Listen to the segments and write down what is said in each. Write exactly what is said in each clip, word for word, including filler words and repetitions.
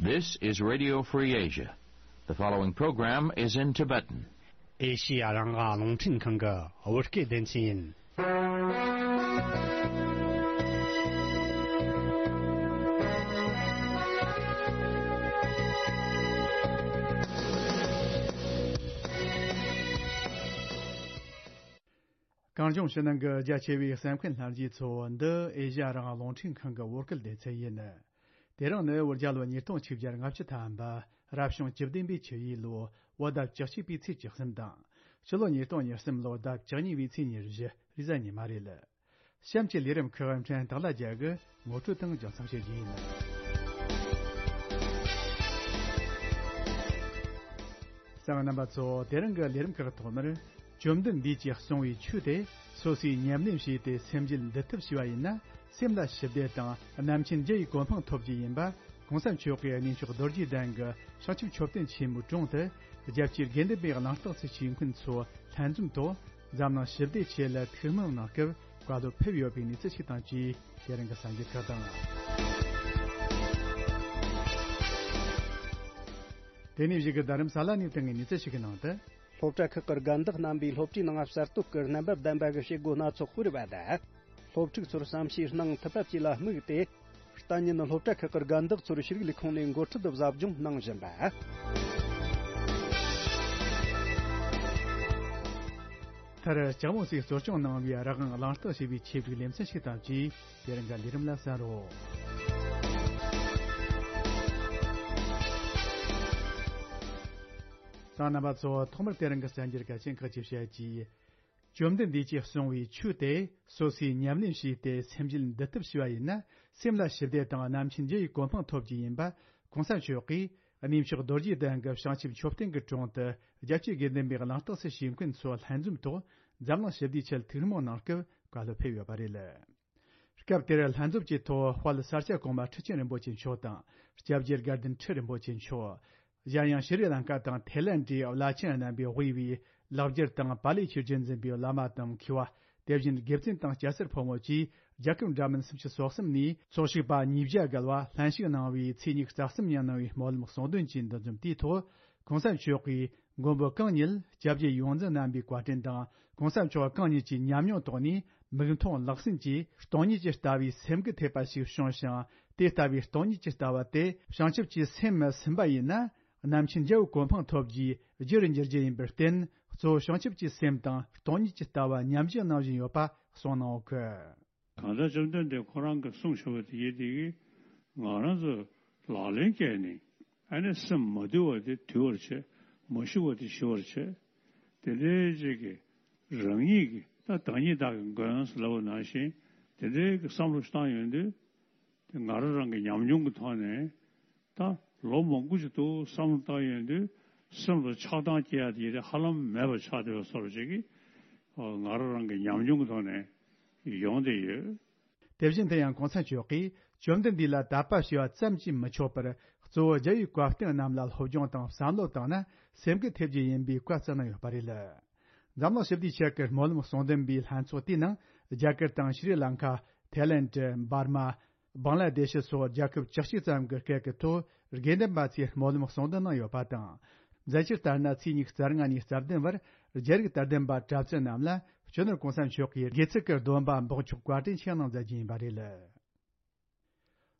This is Radio Free Asia. The following program is in Tibetan. ཨེ་ཤི་ཡ་རང་དབང་རླུང་འཕྲིན་ཁང་གི་བོད་སྐད་སྡེ་ཚན་ཡིན། གངས་ལྗོངས་ཕྱི་ནང་གི་རྒྱ་ཆེ་བའི་གསན་མཁན་ལྷན་རྒྱས་ཚོ། འདི་ཨེ་ཤ་ཡ་རང་དབང་རླུང་འཕྲིན་ཁང་གི་བོད་སྐད་སྡེ་ཚན་ཡིན། དེ་རིང་ནི་བོད་རྒྱལ་ལོ་ཉིས་སྟོང་ཆིག་བརྒྱ་ལྔ་བཅུ་ཐམ་པ། རབ་བྱུང་བཅུ་བདུན་པའི་ཆུ་ཡོས་ལོ། བོད་ཟླ་བཅུ་གཅིག་པའི་ཚེས་བཅུ་གསུམ་དང་། སྤྱི་ལོ་ཉིས་སྟོང་ཉེར་གསུམ་ལོ། ཟླ་བཅུ་གཉིས་པའི་ཚེས་ཉེར་བཞི། རེས་གཟའ་ཉི་མ་རེད། གཤམ་གྱི་ལས་རིམ་ཁག་འཕྲིན་སྟེགས་ལ་རྒྱ་གི་ངོ་སྤྲོད་དང་རྒྱང་སྲིང་བྱེད་རྒྱུ་ཡིན། གསན་མཁན་རྣམ་པ་ཚོ། དེ་རིང་གི་ལས་རིམ་ཁག་ཐོག་མར། བཅོམ་ལྡན་འདས་ཀྱིས་གསུངས་པའི་ཆོས་དེ་སོ་སོས་ཉམས་ལེན་བྱས་ཏེ་སེམས་རྒྱུད་འདུལ་ཐབས་བྱས་པ་ཡིན་ན། སེམས་ལ་ཞི་བདེ་དང་རྣམ་མཁྱེན་རྒྱུ་ཡི་གོ་འཕང་ཐོབ་རྒྱུ་ཡིན་པ། གོང་ས་མཆོག་གིས་གནས་མཆོག་རྡོ་རྗེ་གདན་གྱི་བྱང་ཆུབ་མཆོད་རྟེན་ཆེན་མོའི་དྲུང་དུ། རྒྱལ་གཅེས་དགེ་འདུན་པའི་གླེང་སྟེགས་སུ་ཞུགས་མཁན་ཚོ་ལྷན་འཛོམས་ཐོག་འཛམ་གླིང་ཞི་བདེའི་ཆེད་ལ་ཐུགས་སྨོན་གནང་སྐབས་བཀའ་སློབ་ཕེབས་ཡོད་པའི་གནས་ཚུལ་ཞིག་དང་བཅས། དེ་རིང་གི་གསར་འགྱུར་ཁག་དང་། དེ་ནས་གཞུག་གི་རྡ་རམ་ས་ལ་ནས་བཏང་བའི་གནས་ཚུལ་ཞིག་གི་ནང་དུ། སློབ་གྲྭ་ཁག་གི་རྒན་བདག་རྣམ་པས་སློབ་གྲྭའི་ནང་གསར་གཏོད་ཀྱི་རྣམ་པ་ལྡན་པ་གི་བྱེད་སྒོ་སྣ་ཚོགས་སྤེལ་བ་དང་། སློབ་ཕྲུག་ཚོར་བསམ་ཤེས་གནང་ཐུབ་པ་བཅས་ལ་དམིགས་ཏེ། གཏན་ཉིན་སློབ་གྲྭ་ཁག་གི་རྒན་བདག་ཚོར་ཤེས་རིག་ལས་ཁུངས་ནས་འགོ་ཁྲིད་དུ་ཟབ་སྦྱོང་གནང་བཞིན་པ། མཐར་ལྕགས་མོ་སོས་གཙོ་སྐྱོང་གནང་བའི་རང་དབང་གླེང་སྟེགས་ཞེས་པའི་ཆེད་སྒྲིག་ལེ་ཚན་ཞིག་དང་བཅས། དེ་རིང་གི་ལས་རིམ་ལ་གསན་རོགས། གསན་མཁན་རྣམ་པ་ཚོ། ཐོག་མར་དེ་རིང་གི་གསར་འགྱུར་གལ་ཆེན་ཁག་ཅིག་བཤད་ཀྱིས། བཅོམ་ལྡན་འདས་ཀྱིས་གསུངས་པའི་ཆོས་དེ་སོ་སོས་ཉམས་ལེན་བྱས་ཏེ་སེམས་རྒྱུད་འདུལ་ཐབས་བྱས་པ་ཡིན་ན། སེམས་ལ་ཞི་བདེ་དང་རྣམ་མཁྱེན་རྒྱུ་ཡི་གོ་འཕང་ཐོབ་རྒྱུ་ཡིན་པ། གོང་ས་མཆོག་གིས་གནས་མཆོག་རྡོ་རྗེ་གདན་གྱི་བྱང་ཆུབ་མཆོད་རྟེན་གྱི་དྲུང་དུ་རྒྱལ་གཅེས་དགེ་འདུན་པའི་གླེང་སྟེགས་སུ་ཞུགས་མཁན་ཚོ་ལྷན་འཛོམས་ཐོག་འཛམ་གླིང་ཞི་བདེའི་ཆེད་ཐུགས་སྨོན་གནང་སྐབས་བཀའ་སློབ་ཕེབས་ཡོད་པ་རེད། སྐབས་དེར་ལྷན་འཛོམས་ཀྱི་ཐོག་དཔལ་ས་སྐྱ་གོང་མ་ཁྲི་ཆེན་རིན་པོ་ཆེ་མཆོག་དང་། སྐྱབས་རྗེ་དགའ་ལྡན་ཁྲི་རིན་པོ་ཆེ་མཆོག། གཞན་ཡང་ཤྲི་ལང་ཀ་དང་ཐའི་ལན་ཌའི་བླ་ཆེན་རྣམ་པས་དབུས་པའི་ལེགས་སྦྱར་དང་པཱ་ལིའི་ཆོས་རྒྱུན་འཛིན་པའི་བླ་མ་དང་མཁས་པ། དེ་བཞིན་དགེ་བཙུན་དང་སྐྱ་སེར་ཕོ་མོ་བཅས་རྒྱལ་ཁབ་འདྲ་མིན་སུམ་ཅུ་སོ་གསུམ་ནས་ཚོགས་ཞུགས་པ་ཉིས་བརྒྱ་བརྒལ་བ་ལྷན་ཞུགས་གནང་བའི་ཚེས་ཉི་ཤུ་རྩ་གསུམ་ཉིན་གནང་བའི་སྨོན་ལམ་གསུང་འདོན་གྱི་འདུ་འཛོམས་དེའི་ཐོག་གོང་ས་མཆོག་གིས་མགོན་པོ་གང་ཉིད་སྐྱབས་རྗེ་ཡོངས་འཛིན་རྣམ་པའི་བཀའ་དྲིན་དང་། གོང་ས་མཆོག་གང་ཉིད་ཀྱི་ཉམས་མྱོང་ཐོག་ནས་མིག་མཐོང་ལག་ཟིན་གྱིས་སྟོང་ཉིད་ཀྱི་ལྟ་བའི་སེམས་འགུལ་ཐེབས་པ་ཞིག་བྱུང་ཞིང་། དེ་ལྟ་བུའི་སྟོང་ཉིད་ཀྱི་ལྟ་བ་དེ་བྱང་ཆུབ་ཀྱི་སེམས་སུ་ཟིན་པ་ཡིན་ན། རྣམ་མཁྱེན་རྒྱལ་བའི་གོ་འཕང་ཐོབ་རྒྱུའི་རྒྱུ་རུ་འགྱུར་རྒྱུ་ཡིན་པར་བརྟེན། གཙོ་བོ་བྱང་ཆུབ་ཀྱི་སེམས་དང་སྟོང་ཉིད་ཀྱི་ལྟ་བ་ཉམས་བཞེས་གནང་བཞིན་ཡོད་པ་གསུངས་གནང་ཡོད་གི། གང་ལྟར་བཅོམ་ལྡན་འདས་ཁོ་རང་གིས་གསུངས་བཞག་པ་དེ་ཡིན་དེ་གིས་ང་རང་ཚོ་ལག་ལེན་བཀལ་ནས། ཨ་ནི་སེམས་མ་དུལ་བ་དེ་དུལ་བར་བྱེད། མ་ཞི་བ་དེ་ཞི་བར་བྱེད། དེ་འདྲའི་ཅིག་གི་རང་ཉིད་ཀྱི་ད་བདག་ཉིད་བདག་གི་མགོན་ཟེར་ལབ་པ་ནང་བཞིན། དེ་འདྲའི་གི་བསམ་བློ་ཞིག་བཏང་ཡོང་དུས། དེ་ང་རང་རང་གི་ཉམས་མྱོང་གི་ཐོག་ནས་ད་ལོ་མང་པོ་ཞིག་འདུག་བསམ་བློ་བཏང་ཡོང་དུས། སེམས་ལ་ཆགས་སྡང་སྐྱེ་ཡ་དེ་ཡིན་ཧ་ལམ་མེད་པ་ཆགས་བསྡད་པ་བཟོ་འདྲ་ཅིག་གི་ང་རང་རང་གི་ཉམས་མྱོང་གི་ཐོག་ནས་ཡོང་བསྡད་ཡོད། དེ་བཞིན་དུ་ཡང་གོང་ས་མཆོག་གིས་བཅོམ་ལྡན་འདས་ལ་དད་པ་བྱས་པ་ཙམ་གྱིས་མི་ཆོག་པར། གཙོ་བོ་རྒྱལ་བའི་བཀའ་བསྟན་རྣམས་ལ་སློབ་སྦྱོང་དང་བསམ་བློ་བཏང་ན་སེམས་འགུལ་ཐེབས་རྒྱུ་ཡིན་པའི་བཀའ་བསྩལ་གནང་ཡོད་པ་རེད། འཛམ་གླིང་ཞི་བདེའི་ཆེད་ཀྱི་སྨོན་ལམ་གསུང་འདོན་པའི་ལྷན་ཚོགས་དེའི་ནང་རྒྱ་གར་དང་ཤྲི་ལང་ཀ། ཐའི་ལེན་ཌ། འབར་མ། བང་ལ་དེ་ཤི་སོགས་རྒྱལ་ཁབ་བཅུ་གཅིག་ཙམ་གྱི་སྐད་ཀྱི་ཐོག་དགེ་འདུན་པ་ཚོས་སྨོན་ལམ་གསུང་འདོན་གནང་ཡོད་པ་དང་། འཛད་སྤྱིར་ལྟར་ན་ཚེས་ཉི་ཤུ་རྩ་ལྔ་ནས་རྩ་བདུན་བར་རྒྱ་རིགས་དད་ལྡན་པ་གྲྭ་བཙུན་རྣམས་ལ་སྤྱི་ནོར་གོང་ས་མཆོག་གིས་དགེ་ཚུལ་གྱི་སྡོམ་པ་འབོགས་ཆོག་བཀའ་དྲིན་ཆེ་གནང་མཛད་རྒྱུ་ཡིན་པ་རེད།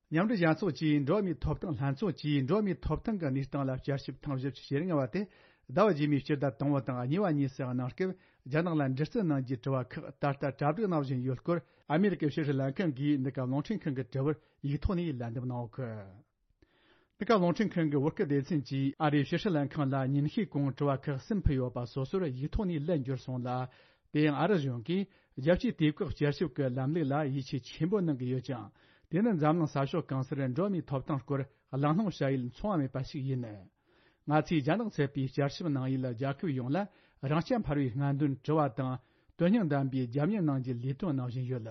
མཉམ་འབྲེལ་རྒྱལ་ཚོགས་ཀྱིས་འགྲོ་བ་མིའི་ཐོབ་ཐང་ལྷན་ཚོགས་ཀྱིས་འགྲོ་བ་མིའི་ཐོབ་ཐང་གི་གནས་སྟངས་ལ་བསྐྱར་ཞིབ་ཐེངས་བཞི་བཅུ་ཞེ་ལྔ་བ་དེ་ཟླ་བ་རྗེས་མའི་སྤྱི་ཟླ་དང་པོ་དང་གཉིས་པ་གཉིས་སུ་གནང་སྐབས། རྒྱ་ནག་ལ་འདྲི་རྩད་གནང་རྒྱུའི་དྲི་བ་ཁག་ད་ལྟ་གྲ་སྒྲིག་གནང་བཞིན་ཡོད་སྐོར། ཨ་མེ་རི་ཀའི་ཕྱི་སྲིད་ལྷན་ཁང་གིས་འདི་ག་རླུང་འཕྲིན་ཁང་གི་དྲི་བར་ཡིག་ཐོག་ནས་ལན་འདེབས་གནང་ཡོད་གི། འདི་ག་རླུང་འཕྲིན་ཁང་གི་བོད་སྐད་སྡེ་ཚན་གྱིས་ཨ་རིའི་ཕྱི་སྲིད་ལྷན་ཁང་ལ་ཉིན་ཤས་གོང་དྲི་བ་ཁག་གསུམ་ཕུལ་ཡོད་པ་སོ་སོར་ཡིག་ཐོག་ནས་ལན་བསྒྱུར་སོང་ལ། དེ་ཡང་ཨ་རི་གཞུང་གིས་རྒྱལ་སྤྱིའི་དུས་བཀག་བསྐྱར་ཞིབ་ཀྱི་ལམ་ལུགས་ལ་ཡིད་ཆེས་ཆེན་པོ་གནང་གི་ཡོད་ཀྱང་། དེ་ནི་འཛམ་གླིང་ས་ཕྱོགས་གང་སར་འགྲོ་བ་མིའི་ཐོབ་ཐང་སྐོར་གླེང་སློང་བྱ་ཡུལ་མཚུངས་པ་མེད་པ་ཞིག་ཡིན། ང་ཚོས་རྒྱ་ནག་ཚད་པའི་བསྐྱར་ཞིབ་གནང་ཡུལ་རྒྱལ་ཁབ་ཡོངས་ལ་རང་རྐྱ་འཕེར་བའི་སྔ་འདོན་དྲི་བ་དང་། དོན་སྙིང་ལྡན་པའི་རྒྱབ་གཉེར་གནང་རྒྱུའི་ལས་དོན་གནང་བཞིན་ཡོད།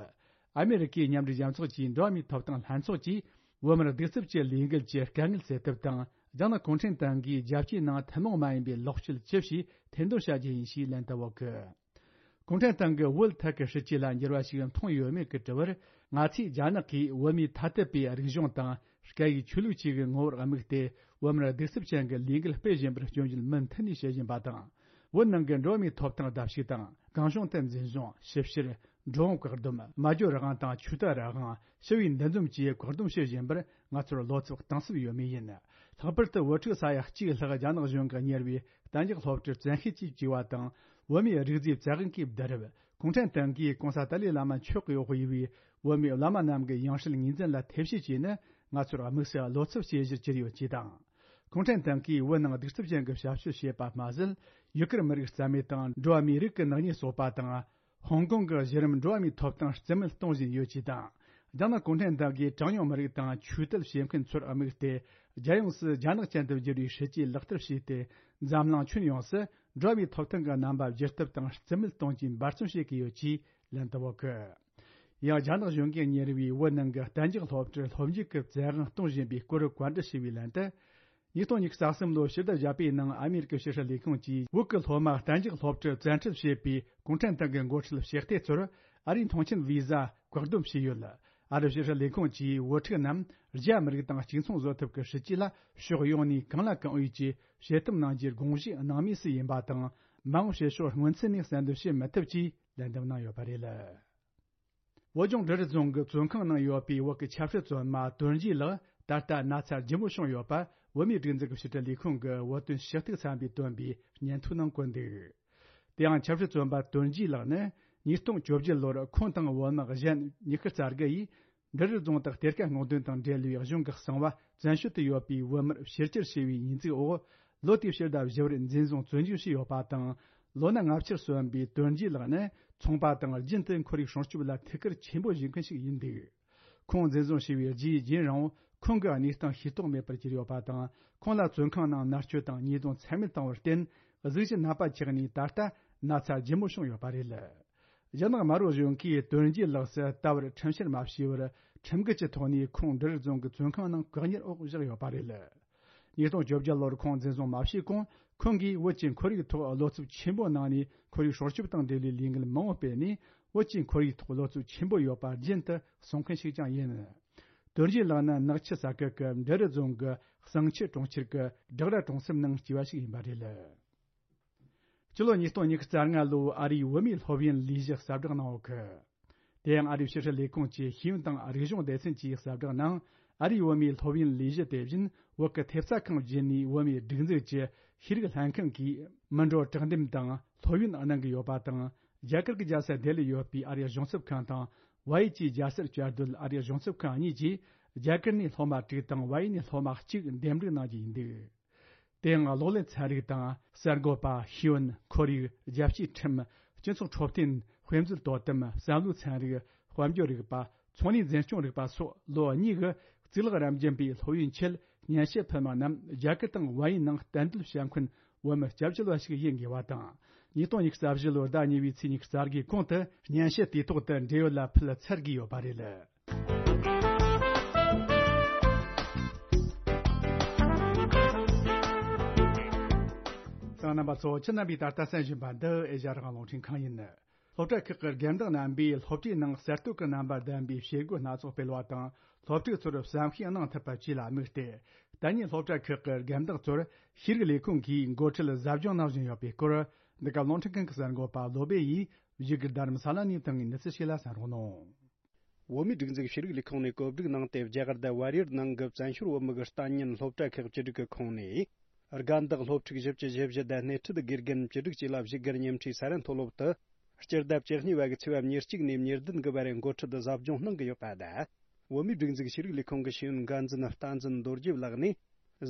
ཨ་མེ་རི་ཀའི་མཉམ་འབྲེལ་རྒྱལ་ཚོགས་ཀྱི་འགྲོ་བ་མིའི་ཐོབ་ཐང་ལྷན་ཚོགས་ཀྱིས་བོད་མིར་གདུག་རྩུབ་ཀྱི་ལས་འགུལ་གྱི་དཀའ་ངལ་སེལ་ཐབས་དང་། རྒྱ་ནག་གུང་ཁྲན་ཏང་གིས་རྒྱལ་སྤྱིའི་ནང་ཐུན་མོང་མ་ཡིན་པའི་ལོག་སྤྱོད་ཅི་བྱས་ཐེར་འདོན་བྱ་རྒྱུ་ཡིན་ཞེས་ལན་བཏབ་ཡོད་གི། གུང་ཁྲན་ཏང་གི་བོད་ཐད་ཀྱི་སྲིད་ཇུས་ལ་འགྱུར་བ་ཞིག་མཐོང་ཡོད་མེད་ཀྱི་དྲི་བར། ང་ཚོས་རྒྱ་ནག་གིས་བོད་མིའི་ཐ་དད་པའི་རིག་གཞུང་དང་སྐད་ཡིག་ཆོས་ལུགས་བཅས་ཀྱི་ངོ་བོར་དམིགས་ཏེ། བོད་མིར་གདུག་རྩུབ་ཅན་གྱི་ལས་འགུལ་སྤེལ་བཞིན་པར་སྐྱོན་བརྗོད་མུ་མཐུད་ནས་བྱེད་བཞིན་པ་དང་། བོད་ནང་གི་འགྲོ་བ་མིའི་ཐོབ་ཐང་བརྡབ་གསིག་དང་། གང་བྱུང་དུ་འཛིན་བཟུང་། ཞིབ་བཤེར། འགྲོ་འོང་བཀག་སྡོམ། སྨྲ་བརྗོད་རང་དབང་དང་ཆོས་དད་རང་དབང་། ཞི་བའི་འདུ་འཛོམས་བཅས་བཀག་སྡོམ་བྱེད་བཞིན་པར། ང་ཚོར་བློ་འཚབ་གཏིང་ཟབ་ཡོད་མུས་ཡིན། ལྷག་པར་དུ་བོད་ཕྲུག་ས་ཡ་གཅིག་ལྷག་རྒྱ་ནག་གཞུང་གིས་གཉེར་བའི་གཏན་འཇགས་སློབ་གྲྭར་བཙན་ཤེད་ཀྱིས་བཅུག་པ་དང་། བོད་མིའི་རིག་རྫས་བཙན་དབང་གིས་བསྡུ་རུབ། གུང་ཁྲན་ཏང་གིས་༸གོང་ས་ཏཱ་ལའི་བླ་མ་མཆོག་གིས་དབུས་པའི་བོད་མིའི་བླ་མ་རྣམས་ཀྱི་ཡང་སྲིད་ངོས་འཛིན་ལ་ཐེ་བྱུས་བྱས་ནས། ང་ཚོར་དམིགས་བསལ་བློ་འཚབ་བྱེད་གཞིར་གྱུར་ཡོད་ཅེས་དང་། གུང་ཁྲན་ཏང་གིས་བོད་ནང་གདུག་རྩུབ་ཅན་གྱི་བྱ་སྤྱོད་བྱེད་པ་མ་ཟད། ཡུ་གུར་མི་རིགས་རྩ་མེད་དང་། འགྲོ་བ་མིའི་རིགས་ཀྱི་ནག་ཉེས་བཟོ་པ་དང་། ཧོང་ཀོང་གི་གཞི་རིམ་འགྲོ་བ་མིའི་ཐོབ་ཐང་རྩིས་མེད་གཏོང་བཞིན་ཡོད་ཅེས་དང་། རྒྱ་ནག་གུང་ཁྲན་ཏང་གིས་གྲངས་ཉུང་མི་རིགས་དང་ཆོས་དད་བྱེད་མཁན་ཚོར་དམིགས་ཏེ། རྒྱལ་ཡོངས་སུ་རྒྱ་ནག་ཅན་དུ་བསྒྱུར་བའི་སྲིད་ཇུས་ལག་བསྟར་བྱས་ཏེ། འཛམ་གླིང་ཁྱོན་ཡོངས་སུ་འགྲོ་བ་མིའི་ཐོབ་ཐང་གི་རྣམ་པ་བསྒྱུར་ཐབས་དང་རྩིས་མེད་གཏོང་རྒྱུའི་འབད་བརྩོན་བྱེད་ཀྱི་ཡོད་ཅེས་ལན་དུ་བོ་གི། ཡང་རྒྱ་ནག་གཞུང་གིས་གཉེར་བའི་བོད་ནང་གི་གཏན་འཇགས་སློབ་གྲྭར་སློབ་འཇུག་གི་བཙན་དབང་གཏོང་བཞིན་པའི་སྐོར་བཀའ་འདྲི་ཞུས་པའི་ལན་དུ། ཉིས་སྟོང་ཉི་ཤུ་རྩ་གསུམ་ལོའི་ཕྱི་ཟླ་བཞི་པའི་ནང་ཨ་མེ་རི་ཀའི་ཕྱི་སྲིད་ལས་ཁུངས་ཀྱིས་བོད་ཀྱི་སློབ་མ་གཏན་འཇགས་སློབ་གྲྭར་བཙན་ཁྲིད་བྱས་པའི་གུང་ཁྲན་ཏང་གི་འགོ་ཁྲིད་ཕྱི་སྡེ་ཚོར་ཨ་རིའི་མཐོང་མཆན་བི་ཟ་བཀག་སྡོམ་བྱས་ཡོད། ཨ་རིའི་ཕྱི་སྲིད་ལས་ཁུངས་ཀྱིས་བོད་ཕྲུག་རྣམས་རྒྱ་མི་རིགས་དང་གཅིག་མཚུངས་བཟོ་ཐབས་ཀྱི་སྲིད་ཇུས་ལ་ཕྱོགས་ཡོངས་ནས་གང་ལ་གང་འོས་ཀྱིས་བྱེད་ཐབས་གནང་རྒྱུའི་དགོངས་གཞི་སྣང་མུས་སུ་ཡིན་པ་དང་། མ་འོངས་བྱེད་ཕྱོགས་སྔོན་ཚུད་ནས་གསལ་འདོན་བྱེད་མི་ཐུབ་ཅེས་ལན་འདེབས་གནང་ཡོད་པ་རེད། བོད་ལྗོངས་འབྲི་རུ་རྫོང་གི་བཙོན་ཁང་ནང་ཡོད་པའི་བོད་ཀྱི་ཆབ་སྲིད་བཙོན་པ་དོན་རྒྱས་ལགས་ད་ལྟ་ན་ཚ་ལྗིད་མོ་བྱུང་ཡོད་པ། བོད་མིའི་སྒྲིག་འཛུགས་ཀྱི་ཕྱི་དྲིལ་ལས་ཁུངས་ཀྱི་བོད་དོན་ཞུ་གཏུག་ཚན་པས་བཏོན་པའི་སྙན་ཐོའི་ནང་བཀོད་འདུག། དེ་ཡང་ཆབ་སྲིད་བཙོན་པ་དོན་རྒྱས་ལགས་ནི་ཉིས་སྟོང་བཅོ་བརྒྱད་ལོར་ཁོང་དང་བོད་དམག་གཞན་ཉི་ཤུ་རྩ་དགུ་ཡིས་འབྲི་རུ་རྫོང་དུ་གཏེར་ཁ་སྔོག་འདོན་དང་འབྲེལ་བའི་གཞུང་གི་གསང་བ་བཙན་བྱོལ་དུ་ཡོད་པའི་བོད་མིར་ཕྱིར་བསྐྱུར་བྱས་པའི་ཉེས་འཛུགས་འོག། ལོ་དེའི་ཕྱི་ཟླ་བཞི་པར་འཛིན་བཟུང་བཙོན་འཇུག་བྱས་ཡོད་པ་དང་། ལོ་ན་ལྔ་བཅུར་སོན་པའི་དོན་རྒྱས་ལགས་ནི་ཚོང་པ་དང་རྒྱུན་དུ་ཁོར་ཡུག་སྲུང་སྐྱོབ་ལ་ཐུགས་ཁུར་ཆེན་པོ་བཞེས་མཁན་ཞིག་ཡིན་འདུག། ཁོང་འཛིན་བཟུང་བྱས་པའི་རྗེས་རྒྱུན་རིང་པོ་ཁོང་གི་གནས་སྟངས་ཤེས་རྟོགས་མེད་པར་གྱུར་ཡོད་པ་དང་། ཁོང་ལ་བཙོན་ཁང་ནང་མནར་གཅོད་དང་ཉེས་རྡུང་ཚད་མེད་བཏང་བར་བརྟེན། གཟུགས་གཞི་ནད་པ་ཆགས་ནས་ད་ལྟ་ན་ཚ་ལྗིད་མོ་བྱུང་ཡོད་པ་རེད། རྒྱ་ནག་དམར་པོ་གཞུང་གིས་དོན་རྒྱས་ལགས་སུ་ད་བར་ཁྲིམས་བཤེར་མ་བྱས་པར་ཁྲིམས་འགལ་གྱི་ཐོག་ནས་ཁོང་འབྲི་རུ་རྫོང་གི་བཙོན་ཁང་ནང་བཀག་ཉར་འོག་བཞག་ཡོད་པ་རེད། ཉིས་སྟོང་བཅོ་བརྒྱད་ལོར་ཁོང་འཛིན་བཟུང་མ་བྱས་གོང་། ཁོང་གིས་བོད་ཀྱི་ཁོར་ཡུག་ཐོག་བློ་འཚབ་ཆེན་པོ་གནང་ནས། ཁོར་ཡུག་སྲུང་སྐྱོབ་དང་འབྲེལ་བའི་ལས་འགུལ་མང་པོ་སྤེལ་ནས། བོད་ཀྱི་ཁོར་ཡུག་ཐོག་བློ་འཚབ་ཆེན་པོ་ཡོད་པ་རྒྱུན་དུ་གསུང་མཁན་ཞིག་ཀྱང་ཡིན། དོན་རྒྱས་ལགས་ནི་ནག་ཆུ་ས་ཁུལ་གྱི་འབྲི་རུ་རྫོང་གི་བསང་ཆུ་གྲོང་ཁྱེར་གྱི་སྦྲག་ར་གྲོང་གསེབ་ནང་སྐྱེས་པ་ཞིག་ཡིན་པ་རེད། སྤྱི་ལོ་ཉིས་སྟོང་ཉི་ཤུ་རྩ་ལྔ་ལོའི་ཨ་རིའི་བོད་མིའི་སློབ་ཡོན་ལས་གཞི་གསལ་བསྒྲགས་གནང་ཡོད་གི། དེ་ཡང་ཨ་རིའི་ཕྱི་སྲིད་ལས་ཁུངས་ཀྱི་ཤེས་ཡོན་དང་རིག་གཞུང་སྡེ་ཚན་གྱིས་གསལ་བསྒྲགས་ནང་། ཨ་རིའི་བོད་མིའི་སློབ་ཡོན་ལས་གཞི་དེ་བཞིན་བོད་ཀྱི་ཐེབས་རྩ་ཁང་བརྒྱུད་ནས་བོད་མིའི་སྒྲིག་འཛུགས་ཀྱི་ཤེས་རིག་ལྷན་ཁང་གིས་མི་འགྲོ་དྲག་འདེམས་དང་སློབ་ཡོན་གནང་གི་ཡོད་པ་དང་། རྒྱ་གར་གྱི་རྒྱལ་ས་ལྡི་ལིར་ཡོད་པའི་ཨ་རིའི་གཞུང་ཚབ་ཁང་དང་། བལ་ཡུལ་གྱི་རྒྱལ་སར་བཅའ་སྡོད་ཨ་རིའི་གཞུང་ཚབ་ཁང་གཉིས་ཀྱིས་རྒྱ་གར་ནས་སློབ་མ་དྲུག་དང་བལ་ཡུལ་ནས་སློབ་མ་གཅིག་འདེམས་སྒྲུག་གནང་རྒྱུ་ཡིན་འདུག། དེའང་གློག་ཀླད་ཚན་རིག་དང་གསར་འགོད་པ། ཤེས་ཡོན། ཁོར་ཡུག་རྒྱལ་སྤྱིའི་ཁྲིམས། སྤྱི་ཚོགས་འཕྲོད་བསྟེན། དཔེ་མཛོད་དོ་དམ། བསམ་བློའི་ཚན་རིག་དཔལ་འབྱོར་རིག་པ། ཚོང་ལས་འཛིན་སྐྱོང་རིག་པ་སོགས་ལོ་གཉིས་ཀྱི་གཙུག་ལག་རབ་འབྱམས་པའི་སློབ་ཡོན་ཆེད་སྙན་ཞུ་ཕུལ་མི་རྣམས་རྒྱ་གར་དང་བལ་ཡུལ་ནང་གཏན་སྡོད་བྱ་མཁན་བོད་མི་སྐྱབས་བཅོལ་བ་ཞིག་ཡིན་དགོས་པ་དང་། ཉིས་སྟོང་ཉི་ཤུ་རྩ་བཞི་ལོའི་ཟླ་གཉིས་པའི་ཚེས་ཉི་ཤུ་རྩ་དགུའི་གོང་དུ་སྙན་ཞུ་དུས་ཐོག་ཏུ་འབྲེལ་ཡོད་ལ་ཕུལ་ཚར་དགོས་ཡོད་པ་རེད། གསན་མཁན་རྣམ་པ་ཚོ། ཁྱེད་རྣམ་པས་ད་ལྟ་གསན་བཞིན་པ་འདི་ཨེ་ཤ་ཡ་རང་དབང་རླུང་འཕྲིན་ཁང་ཡིན། སློབ་གྲྭ་ཁག་གི་རྒན་བདག་རྣམ་པས་སློབ་གྲྭའི་ནང་གསར་གཏོད་ཀྱི་རྣམ་པ་ལྡན་པའི་བྱེད་སྒོ་སྣ་ཚོགས་སྤེལ་བ་དང་། སློབ་ཕྲུག་ཚོར་བསམ་ཤེས་གནང་ཐུབ་པ་བཅས་ལ་དམིགས་ཏེ། ད་ནི་སློབ་གྲྭ་ཁག་གི་རྒན་བདག་ཚོར་ཤེས་རིག་ལས་ཁུངས་ཀྱིས་འགོ་ཁྲིད་ཟབ་སྦྱོང་གནང་བཞིན་ཡོད་པའི་སྐོར། འདི་ག་རླུང་འཕྲིན་ཁང་གི་གསར་འགོད་པ་བློ་སྦེ་ཡིས་བཞུགས་སྒར་རྡ་རམ་ས་ལ་ནས་བཏང་བའི་གནས་ཚུལ་ཞིག་ལ་གསན་རོགས་གནང་། བོད་མིའི་སྒྲིག་འཛུགས་ཤེས་རིག་ལས་ཁུངས་ནས་གོ་སྒྲིག་གནང་སྟེ། རྒྱ་གར་དང་བལ་ཡུལ་ནང་གི་བཙན་བྱོལ་བོད་མི་གི་ལྟ་ཉན་སློབ་གྲྭ་ཁག་བཅུ་དྲུག་གི་ཁོངས་ནས། རྒན་བདག་སློབ་ཕྲུག་བཞི་བཅུ་ཞེ་བཞི་དང་སྣེ་ཁྲིད་དགེ་རྒན་བཅུ་དྲུག་བཅས་ལ་བཞུགས་སྒར་ཉེ་འཁྲིས་ས་རཱ་མཐོ་སློབ་ཏུ། སྤྱི་ཟླ་བཅུ་གཉིས་པ་གི་ཚེས་པ་ཉེར་གཅིག་ནས་ཉེར་བདུན་གི་བར་འགོ་ཁྲིད་དུ་ཟབ་སྦྱོང་གནང་གི་ཡོད་པ་དང་། བོད་མིའི་སྒྲིག་འཛུགས་ཤེས་རིག་ལས་ཁུངས་ཀྱི་ཤེས་ཡོན་འགན་འཛིན་རྟ་འཛིན་རྡོ་རྗེ་ལགས་ནས།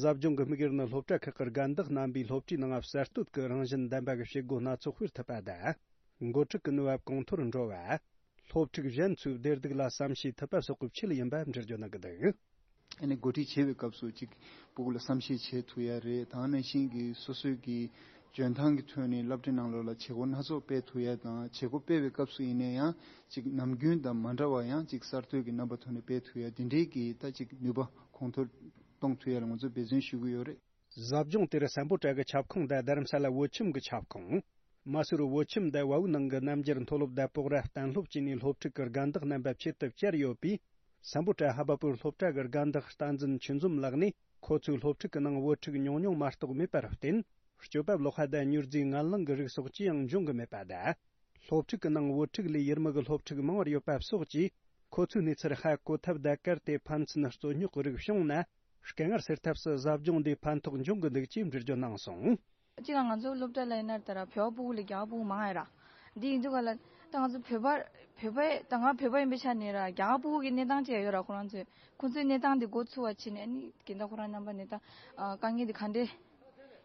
ཟབ་སྦྱོང་གི་དམིགས་ཡུལ་ནི་སློབ་གྲྭ་ཁག་གི་རྒན་བདག་རྣམ་པས་སློབ་གྲྭའི་ནང་གསར་གཏོད་ཀྱི་རང་བཞིན་ལྡན་པ་གི་བྱེད་སྒོ་སྣ་ཚོགས་སྤེལ་ཐུབ་པ་དང་། འགོ་ཁྲིད་ཀྱི་ནུས་པ་གོང་མཐོར་འགྲོ་བ། སློབ་ཕྲུག་གཞན་ཚོའི་བདེ་སྡུག་ལ་བསམ་ཤེས་ཐུབ་པ་སོགས་ཀྱི་ཆེད་ཡིན་པ་འགྲེལ་བརྗོད་གནང་གི་འདུག། ཨ་ནི་འགོ་ཁྲིད་བྱེད་པའི་སྐབས་སུ་ཅིག་སྤུ་གུ་ལ་བསམ་ཤེས་བྱེད་ཐུབ་ཡ་རེད། དེ་ནང་བཞིན་གྱི་སོ་སོའི་གི་འཇོན་ཐང་གི་ཐོག་ནས་སློབ་གྲྭའི་ནང་ལོགས་ལ་བྱེད་སྒོ་སྣ་ཚོགས་སྤེལ་ཐུབ་ཡ་དང་། བྱེད་སྒོ་སྤེལ་བའི་སྐབས་སུ་ཡིན་ན་ཡང་ཅིག་ནམ་རྒྱུན་དང་མ་འདྲ་བ་ཡང་ཅིག་གསར་གཏོད་ཀྱི་རྣམ་པ་ཐོག་ནས་སྤེལ་ཐུབ་ཡ། དེ་འདྲའི་གི་ད་ཅིག་ནུས་པ་གོང་མཐོར་གཏོང་ཐུབ་ཡ་ལ་ང་ཚོས་འབད་བརྩོན་ཞུ་གི་ཡོད་རེད། ཟབ་སྦྱོང་དེར་སམ་བྷོ་ཊ་གི་ཁྱབ་ཁོངས་དང་རྡ་རམ་ས་ལ་བོད་ཁྱིམ་གྱི་ཁྱབ་ཁོངས། མ་སུར་བོད་ཁྱིམ་དང་བལ་བོའི་ནང་གི་རྣམ་རྒྱལ་མཐོ་སློབ་དང་སྤོག་ར་གཏན་སློབ་བཅས་ནས་སློབ་ཕྲུག་གི་དགའ་འདག་རྣམ་པ་ཆེད་དུ་བཅར་ཡོད་པས། སམ་བྷོ་ཊ་ཧ་བ་པུར་སློབ་གྲྭ་གི་དགའ་འདག་བསྟན་འཛིན་ཆོས་འཛོམས་ལགས་ནས། ཁོ་ཚོའི་སློབ་ཕྲུག་གི་ནང་བོད་ཕྲུག་ཉུང་ཉུང་མ་གཏོགས་མེད་པར་བརྟེན། སྐྱོབ་པ་ལོག་ཁ་དང་མྱུར་རྫས་ངན་རླངས་ཀྱི་རིགས་སོགས་ཅི་ཡང་འབྱུང་གི་མེད་པ་དང་། སློབ་ཕྲུག་གི་ནང་བོད་ཕྲུག་ལས་ཡུལ་མི་གི་སློབ་ཕྲུག་མང་བར་ཡོད་པ་སོགས་ཀྱིས། ཁོ་ཚོའི་གནས་ཚུལ་ཧ་གོ་ཐབས་དང་། གལ་ཏེ་ཕན་ཚུན་རྩོད་རྙོག་གི་རིགས་བྱུང་ན། དཀའ་ངལ་སེལ་ཐབས་སུ་ཟབ་སྦྱོང་འདིས་ཕན་ཐོགས་འབྱུང་གི་འདུག་ཅེས་འགྲེལ་བརྗོད་གནང་སོང་། གཅིག་ལ་ང་ཚོ་སློབ་གྲྭ་ལ་ཡིན་ན་ད་ར་བོད་པ་ཕྲུ་གུ་ལས་རྒྱ་གར་ཕྲུ་གུ་མང་ཡ་ར། འདི་ཡིན་དུས་ག་ལ་ད་ང་ཚོ་བོད་པ་བོད་པ་ད་ང་བོད་པ་ཡིན་པའི་ཆ་ནས་ར་རྒྱ་གར་ཕྲུ་གུ་གི་གནས་སྟངས་ཅིག་ཡོད་ར། ཁོ་རང་ཚོས་ཁོ་ཚོའི་གནས་སྟངས་འདི་འགོ་ཚུགས་པ་བྱས་ནས་ཨ་ནི་གིན་ད་ཁོ་རང་རྣམ་པ་ནས་ད་དཀའ་ངལ་འདི་ག་འདྲས་